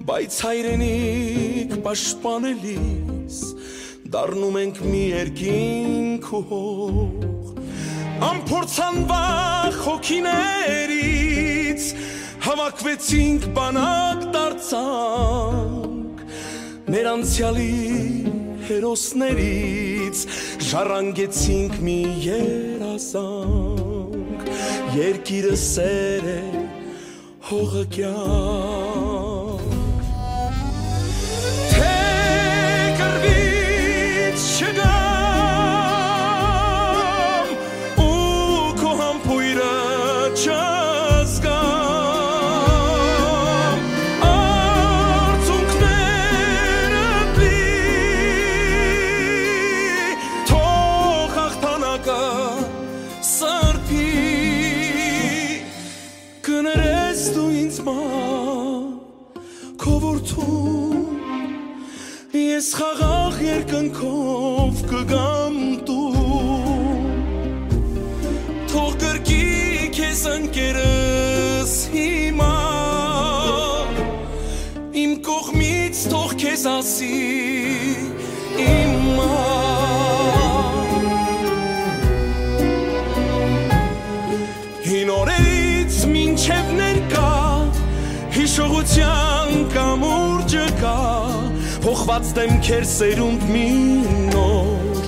բայց հայրենիք պաշտպանելիս դառնում ենք մի երկինք ու հող։ Անփորձանվախ հոգիներից հավաքվեցինք, բանակ դարձանք, մեր անցեալի հերոսներից ժառանգեցինք մի երազանք։ Երկիրը սեր է, հողը կյանք։ Թէ կռուից չգամ ու քո համբոյրը չզգամ, արցունքներդ լի, թող հաղթանակը սրբի։ Կներես դու ինձ մայր, քո որդու, ես խաղաղ երկնքով կգամ տուն։ Թող կրկի քեզ ընկերս հիմա, իմ կողմից թող քեզ ասի իմ մայր։ Հին օրերից մինչև ներկայ, հիշողութեան կամուրջը կայ, փոխուած դէմքեր սերունդ մի նոր,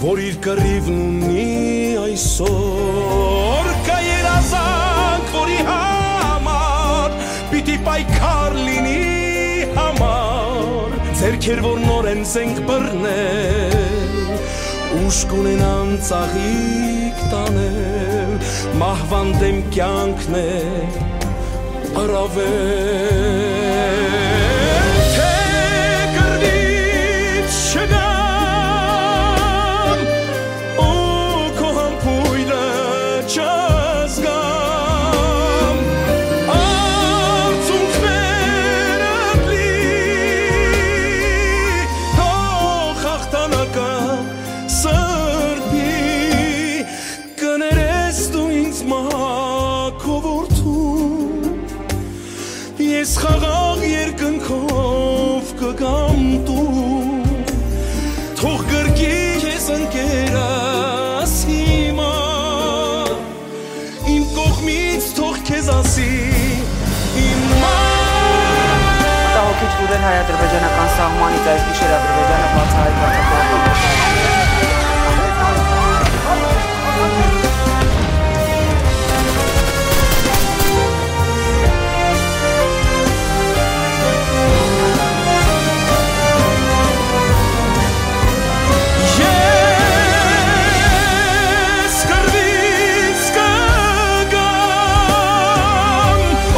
որ իր կռիւն ունի այսօր։ Կայ երազանք, որի համար պիտի պայքար լինի համար, ձեռքեր, որ նորէն զենք բռնել, ուժ կունենան ծաղիկ տանել, մահուան դէմ կեանքն է առավել, թէ կռուից չգամ ու քո համբոյրը չզգամ, արցունքներդ լի, թող հաղթանակը սրբի։ Կներես դու ինձ մայր, քո որդու, ես խաղաղ երկնքով կգամ տուն, թող կրկի քեզ ընկերս հիմա, իմ կողմից թող քեզ ասի իմ մայր։ Մտահոգիչ Վուրեն Հայ-ադրբեջանական սահմանից այս գիշեր Ադրբեջանը բացահայտված է։ Ես կռվից կգամ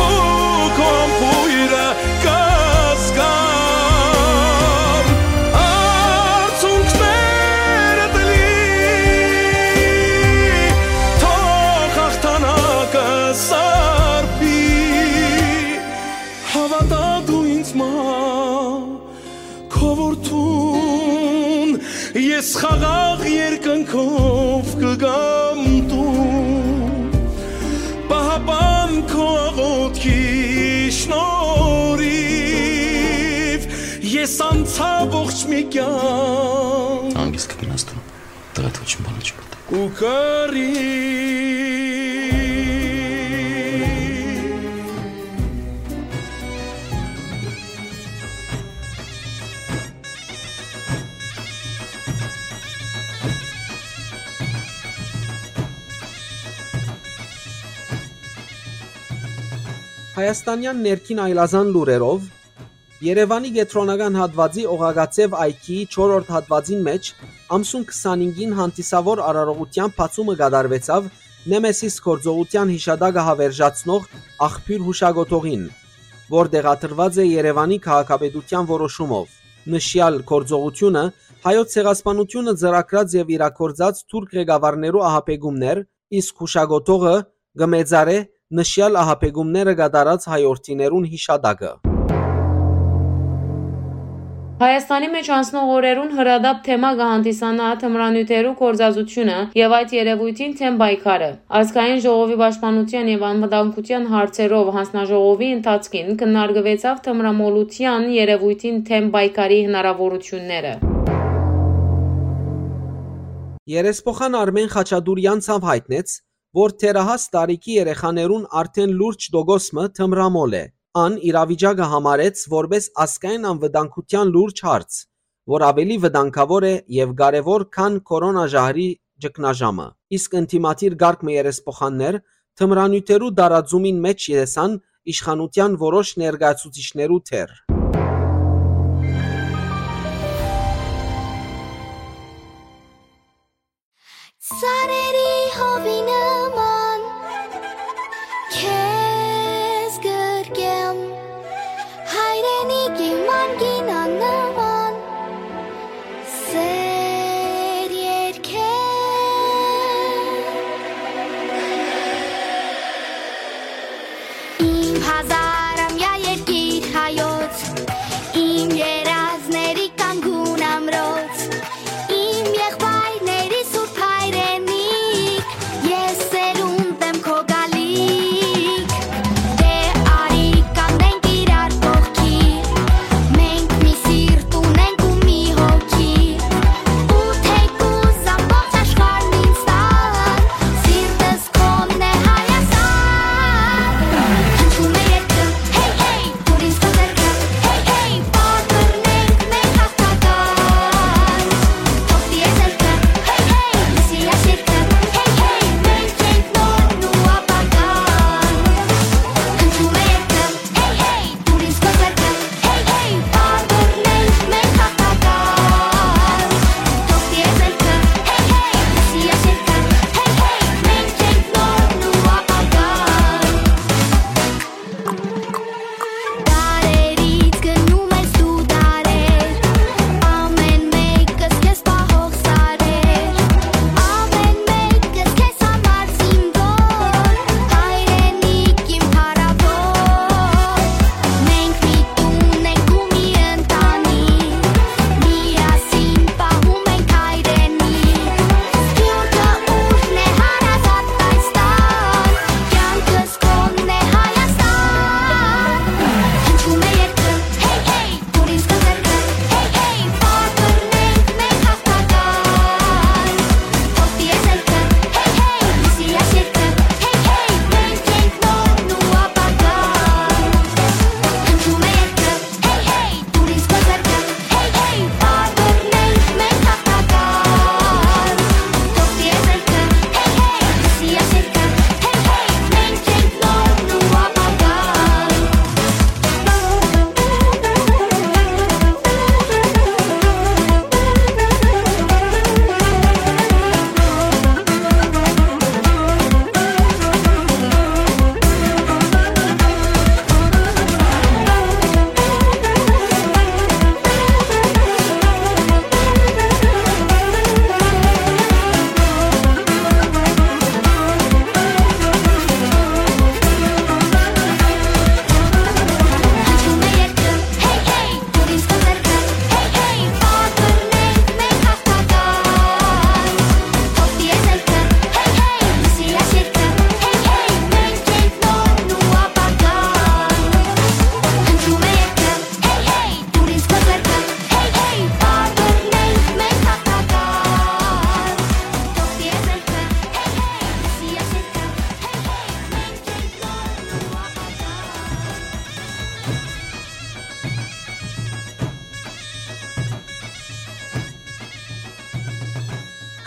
ու քո բոյրը կզգամ, արցունքներդ լի, թող հաղթանակը սարբի։ Հաւատա դու ինձ մա, քո որդուն, ես խաղաղ երկնքով կգամ տուն։ Պահապան քո աղոթքի շնորհիվ ես անցայ ողջ մի կյանք։ Հանգիստ կը գնաս դու, տղեդ ոչ մի բան չի պատահ։ Ու կռիվ։ Հայաստանեան ներքին այլազան լուրերով, Երեւանի կեդրոնական հատուածի Օղակաձեւ այգիի չորրորդ հատուածին մէջ ամսուն քսանհինգին հանդիսաւոր արարողութեան բացումը կատարուեցաւ Նեմեսիս գործողութեան յիշատակը հաւերժացնող աղբիւր յուշակոթողին, որ տեղադրուած է Երեւանի քաղաքապետութեան որոշումով։ Նշեալ գործողութիւնը Հայոց ցեղասպանութիւնը ծրագրած եւ իրագործած թուրք ղեկավարներու ահաբեկումներ, իսկ յուշակոթողը կը մեծարէ նշեալ ահաբեկումները կատարած հայ օրդիներուն յիշատակը։ Հայաստանի մէջ անցնող օրերուն հրատապ թեմա կը հանդիսանայ թմրանիւթերու գործածութիւնը եւ այդ երեւոյթին դէմ պայքարը։ Ազգային ժողովի պաշտպանութեան եւ անվտանգութեան հարցերով յանձնաժողովի ընթացքին քննարկուեցաւ թմրամոլութեան երեւոյթին դէմ պայքարի հնարաւորութիւնները։ Երեսփոխան Արմէն Խաչատուրեան ցաւ յայտնեց, որ թերահաս տարիքի երեխաներուն արդէն լուրջ տոկոս մը թմրամոլ է։ Ան իրավիճակը համարեց որպէս ազգային անվտանգութեան լուրջ հարց, որ աւելի վտանգաւոր է եւ կարեւոր, քան քորոնա ժահրի ճգնաժամը։ Իսկ ընդդիմադիր կարգ մը երեսփոխաններ թմրանիւթերու տարածումին մէջ տեսան իշխանութեան որոշ ներկայացուցիչներու դեր։ Սարերի հովի նման քեզ գրկեմ, հայրենիք իմ անկին աննման սեր երկեմ։ Իմ հազարամյա երկիր հայոց, իմ երազների կանգուն ամրոց, իմ եղբայրների սուրբ հայրենիք,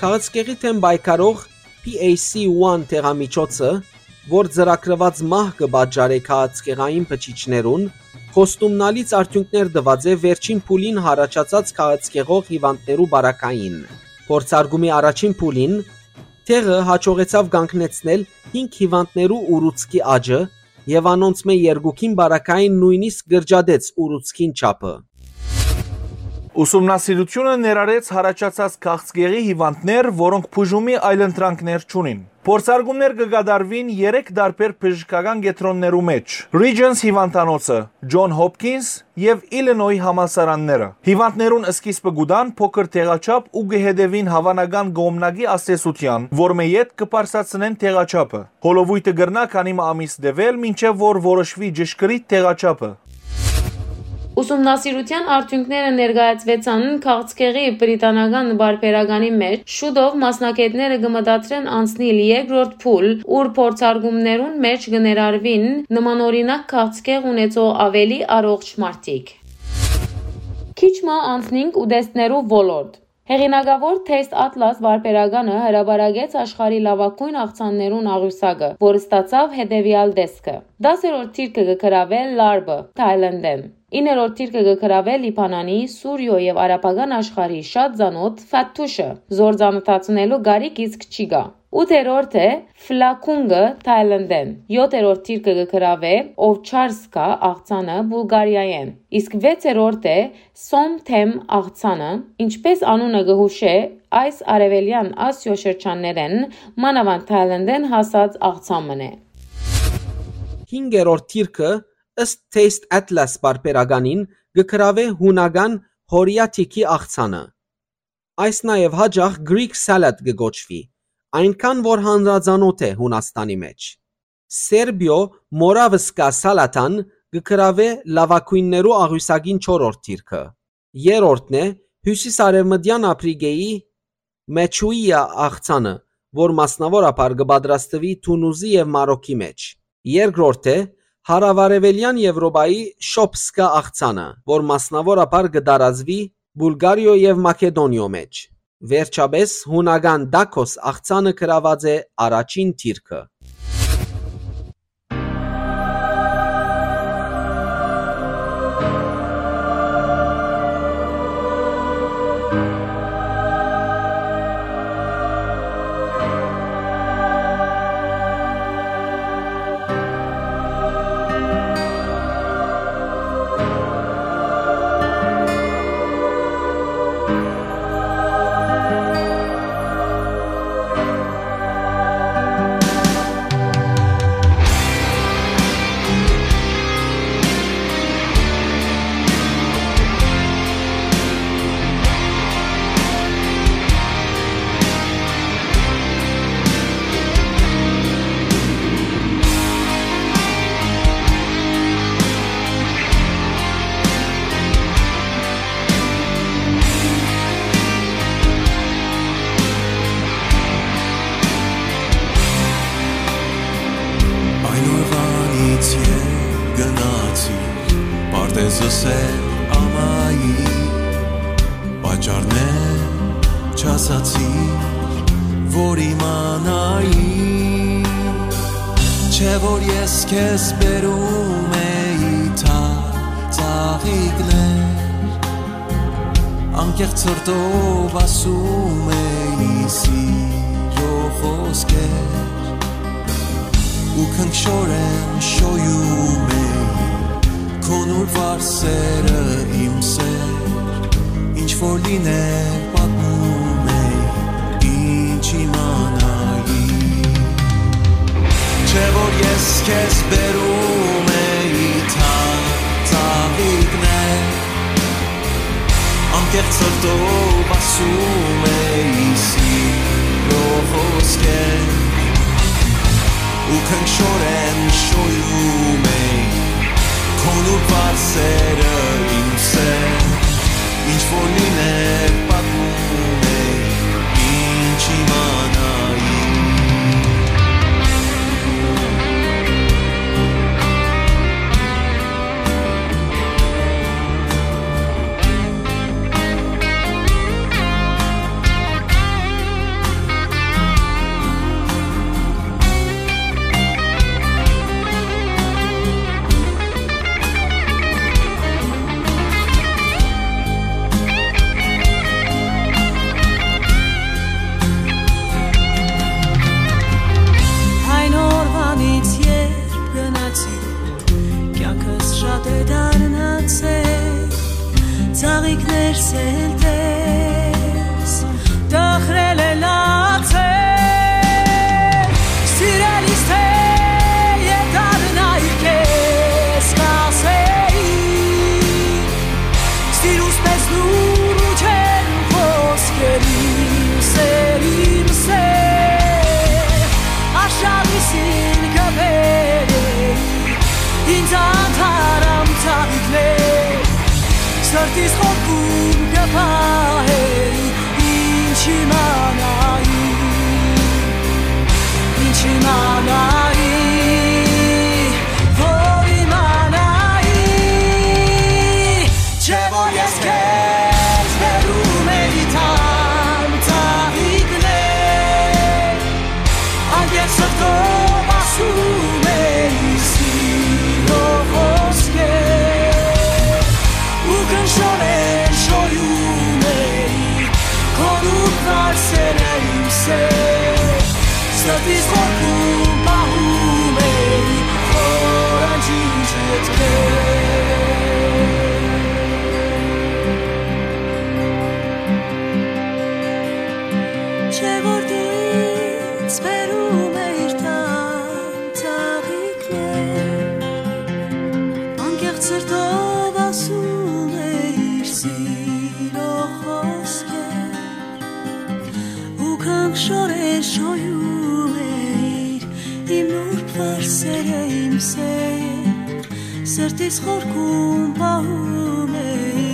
Քաղցկեղի դէմ պայքարող P A C One դեղամիջոցը, որ ծրագրուած մահ կը պատճառէ քաղցկեղային բջիջներուն, խոստումնալից արդիւնքներ տուած է վերջին փուլին յառաջացած քաղցկեղող հիւանդներու պարագային։ Փորձարկումի առաջին փուլին դեղը յաջողեցաւ կանգնեցնել հինգ հիւանդներու ուռուցքի աճը եւ անոնցմէ երկուքին պարագային նոյնիսկ կրճատեց ուռուցքին չափը։ Ուսումնասիրութիւնը ներառեց յառաջացած քաղցկեղի հիւանդներ, որոնք բուժումի այլընտրանքներ չունին։ Փորձարկումներ կը կատարուին երեք տարբեր բժշկական կեդրոններու մէջ՝ Regents հիւանդանոցը, John Hopkins եւ Illinois համալսարանները։ Հիւանդներուն սկիզբը կու տան փոքր դեղաչափ ու կը հետեւին հաւանական կողմնակի ազդեցութեան, որմէ ետք կը բարձրացնեն դեղաչափը։ Հոլովոյթը կրնայ քանի մը ամիս տեւել, մինչեւ որ որոշուի ճշգրիտ դեղաչափը։ Ուսումնասիրութեան արդիւնքները ներկայացուեցան քաղցկեղի բրիտանական պարբերականի մէջ։ Շուտով մասնագէտները կը մտադրեն անցնիլ երկրորդ փուլ, ուր փորձարկումներուն մէջ կը ներառուին նմանօրինակ քաղցկեղ ունեցող աւելի առողջ մարդիկ։ Քիչ մը անցնինք ուտեստներու ոլորտ։ Հեղինակաւոր Taste Atlas պարբերականը հրապարակեց աշխարհի լաւագոյն աղցաններուն աղիւսակը, որ ստացաւ հետեւեալ տեսքը։ Դասերորդ դիրքը կը գրաւէ լարբը Թայլանդէն։ Իններորդ դիրքը կը գրաւէ Լիբանանի, Սուրիոյ եւ արաբական աշխարհի շատ ծանօթ ֆաթուշը։ Զոր ծանօթացնելու կարիք իսկ չի գայ։ Ութերորդ է Ֆլաքունգը Թայլանդէն։ Յոթերորդ դիրքը կը գրաւէ Օվչարսկա աղցանը Բուլղարիայէն, իսկ վեցերորդ է Սոմթեմ աղցանը, ինչպես անունը կը յուշէ, այս արեւելեան Ասիոյ շրջաններէն, մանաւանդ Թայլանդէն հասած աղցան մըն է։ Հինգերորդ դիրքը, ըստ Taste Atlas պարբերականին, կը գրաւէ յունական Հորիաթիքի աղցանը։ Այս նաեւ յաճախ Greek salad կը կոչուի, այնքան որ հանրածանօթ է Յունաստանի մէջ։ Սերբիոյ Մորավսկա սալատան կը գրաւէ լաւագոյններու աղիւսակին չորրորդ դիրքը։ Երրորդն է Հիւսիսարեւմտեան Ափրիկէի Մեչուիա աղցանը, որ մասնաւորաբար կը պատրաստուի Թունուզի եւ Մարոքի մէջ։ Երկրորդ է Հարաւարեւելեան Եւրոպայի Շոփսկա աղցանը, որ մասնաւորաբար կը տարածուի Բուլղարիոյ եւ Մակեդոնիոյ մէջ։ Վերջապէս, յունական տաքոս աղցանը գրաւած է առաջին դիրքը։ Այն օրուանից երբ գնացիր, պարտեզ ըսել ամայի, պատճառներ չասացիր, որ իմանայի, չէ՞ որ ես քեզ բերում էի թա ծաղիկներ, անկեղծ սրտով ասում էի սիրո խոսքեր, ու քնքշորեն շոյում էի քո նուրբ վարսերը իմ սեր, ինչ որ լիներ պատմում էի, ինչ իմանայի, չէ՞ որ ես քեզ բերում էի թա ծաղիկներ, անկեղծ սրտով ասում էի սիրո խոսքեր, ու քնքշորեն շոյում էի քո նուրբ վարսերը իմ սեր, ինչ որ լիներ պատմում էի, ինչ իմանայի։ Ինքը բերէ ինձ անթարամ ծաղիկներ, սրտիս խորքում կը պահէ, ինչ իմանայի, ինչ իմանայի, որ իմանայի, չէ՞ որ ես քեզ բերում էի թարմ ծաղիկներ, անկեղծ սրտով ասում էի սիրո խոսքեր, ու քնշորեն շոյում էի քոնուր վարսերը իմ սեր, սրտիս խորքում պահում էի խորանջի ջութքեր։ Չէ՞ որ ինձ բերում էիր թարմ ծաղիկներ, անկեղծ սրտով ասում էիր սիրո խոսքեր, ու քնշորեն շոյում էիր իմ նուրբ վարսերը իմ սեր, սրտիս խորքում պահում էի,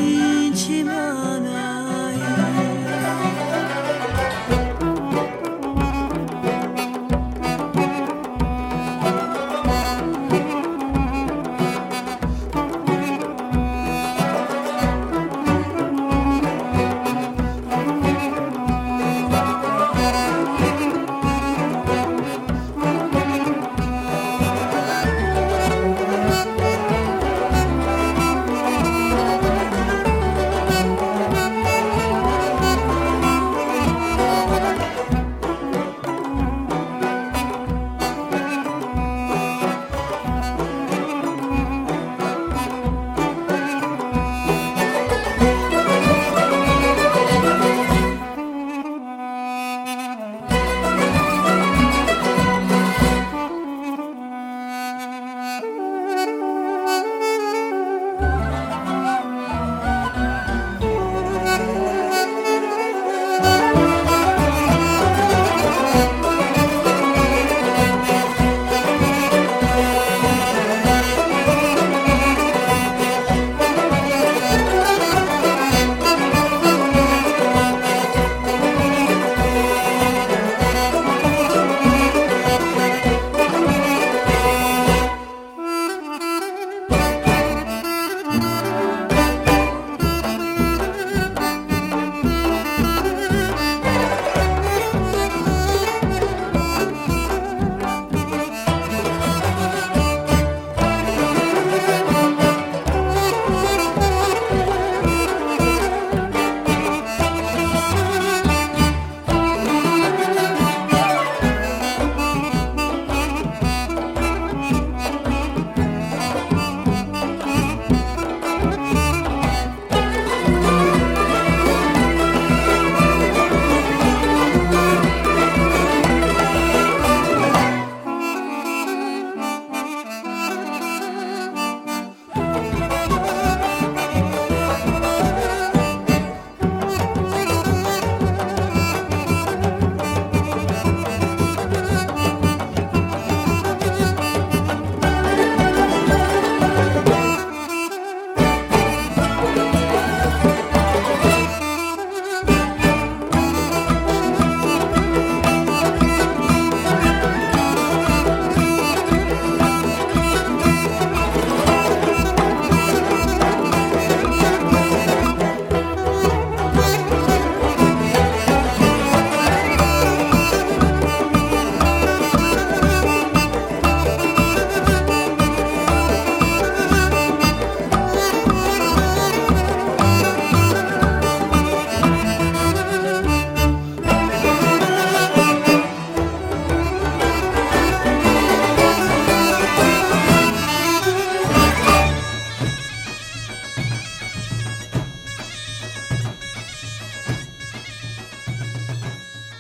ինչ իմանայի։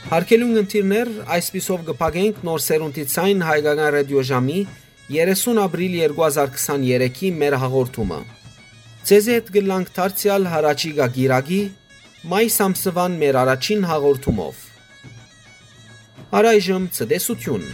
Հարգելի ունգընտիրներ, այսպիսով կը փակենք Նոր Սերունդի Ձայն հայկական ռադիոժամի երեսուն ապրիլ երկու հազար քսաներեքի մեր հաղորդումը։ Ձեզի հետ կ'ըլլանք դարձեալ յառաջիկայ կիրակի, մայիս ամսուան մեր առաջին հաղորդումով։ Առայժմ ցտեսություն։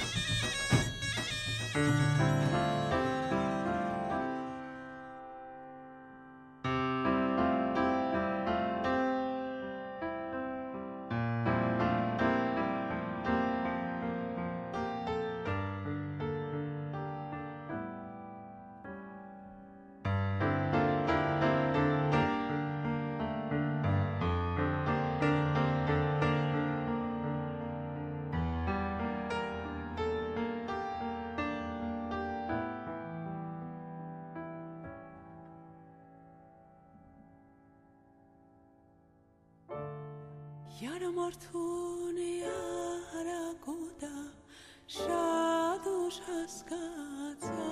Յարմարդուն յարակուտա շատ ուշ հասկացայ,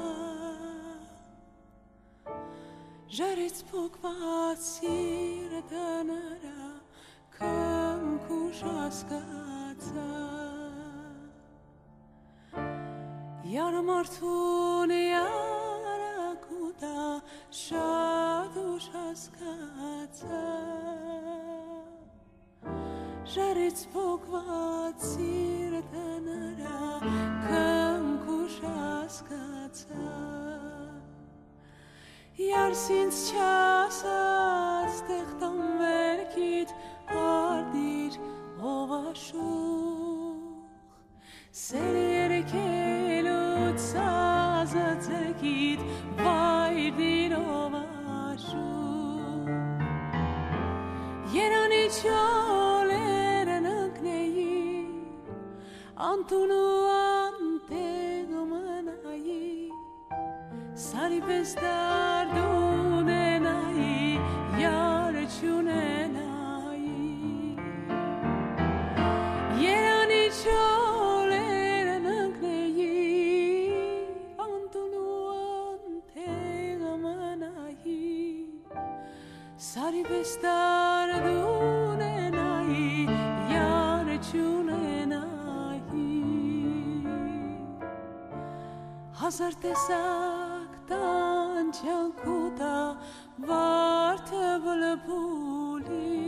ժարից փոկուած սիրտը նրա կամք ուշ հասկացայ։ Յարմարդուն յարակուտա շատ ուշ հասկացայ, ժարից փոկուած սիրտը նրա կամք ուշ հասկացայ։ Յարս ինձ չասած, տեղ տան վերքիդ արտիր, ով աշուղ, սեր երկելու սազը ձերքիդ վայրդիր, ով աշուղ։ Երանի չոլերն ընկնեի, անտուն ու անտեղ մնայի, սարի պէս դարդունենայի, յար չունենայի։ Երանի չոլերն ընկնեի, անտուն ու անտեղ մնայի, սարի պէս դարդունենայի, յար չունենայի։ Հազար տեսակ տանջանք ու տա վարդը բլբուլի,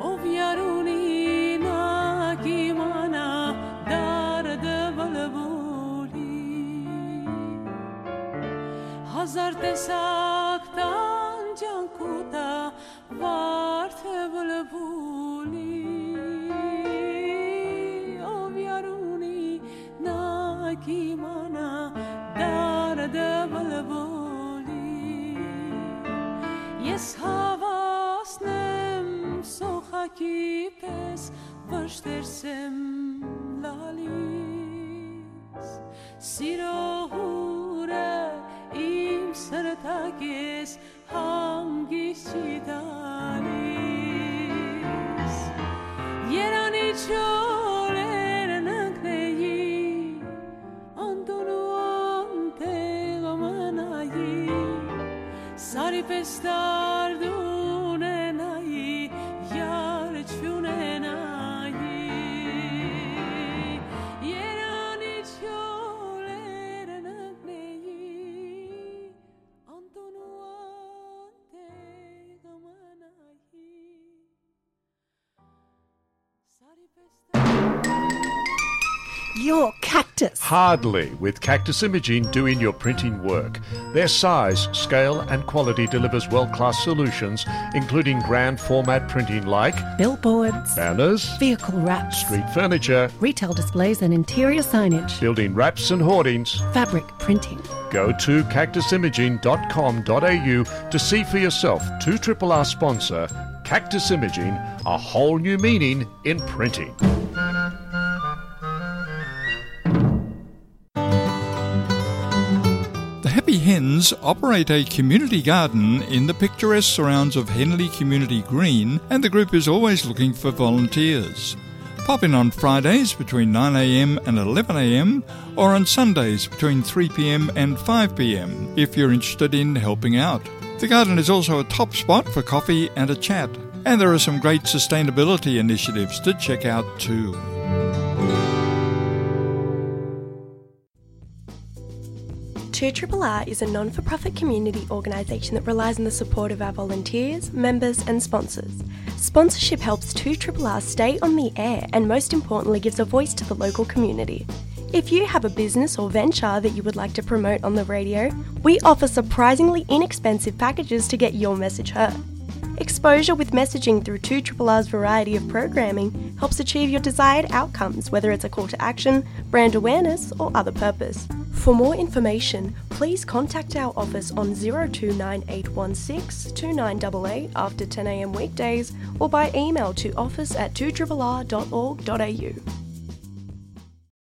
ով յար ունի, նա կիմանայ դարդը բլբուլի։ Հազար տեսակ տանջանք ու տա վարդը բլբուլի, ով յար ունի, նա կիմանայ դարդը բլբուլի։ Ես հաւասնեմ սոխակի պէս, վշտերս եմ լալիս, սիրո հուրը իմ սրտակէս հանգիստ չի տալիս։ Երանի չորերն ընկնեի, անտուն ու անտեղ մնայի, սարի պէս դարդունենայի, յար չունենայի։ Երանի չորերն ընկնեի, անտուն ու անտեղ մնայի, սարի պէս դարդունենայի։ Your Cactus. Hardly, with Cactus Imaging doing your printing work. Their size, scale, and quality delivers world-class solutions, including grand format printing like billboards, banners, vehicle wraps, street furniture, retail displays and interior signage, building wraps and hoardings, fabric printing. Go to cactus imaging dot com dot a u to see for yourself two triple R sponsor Cactus Imaging, a whole new meaning in printing. The Happy Hens operate a community garden in the picturesque surrounds of Henley Community Green, and the group is always looking for volunteers. Pop in on Fridays between nine a m and eleven a m, or on Sundays between three p m and five p m if you're interested in helping out. The garden is also a top spot for coffee and a chat, and there are some great sustainability initiatives to check out too. Two R R R is a non-for-profit community organisation that relies on the support of our volunteers, members and sponsors. Sponsorship helps two R R R stay on the air and, most importantly, gives a voice to the local community. If you have a business or venture that you would like to promote on the radio, we offer surprisingly inexpensive packages to get your message heard. Exposure with messaging through two R R R's variety of programming helps achieve your desired outcomes, whether it's a call to action, brand awareness, or other purpose. For more information, please contact our office on zero two nine eight one six two nine eight eight after ten a m weekdays or by email to office at two R R R dot org dot a u.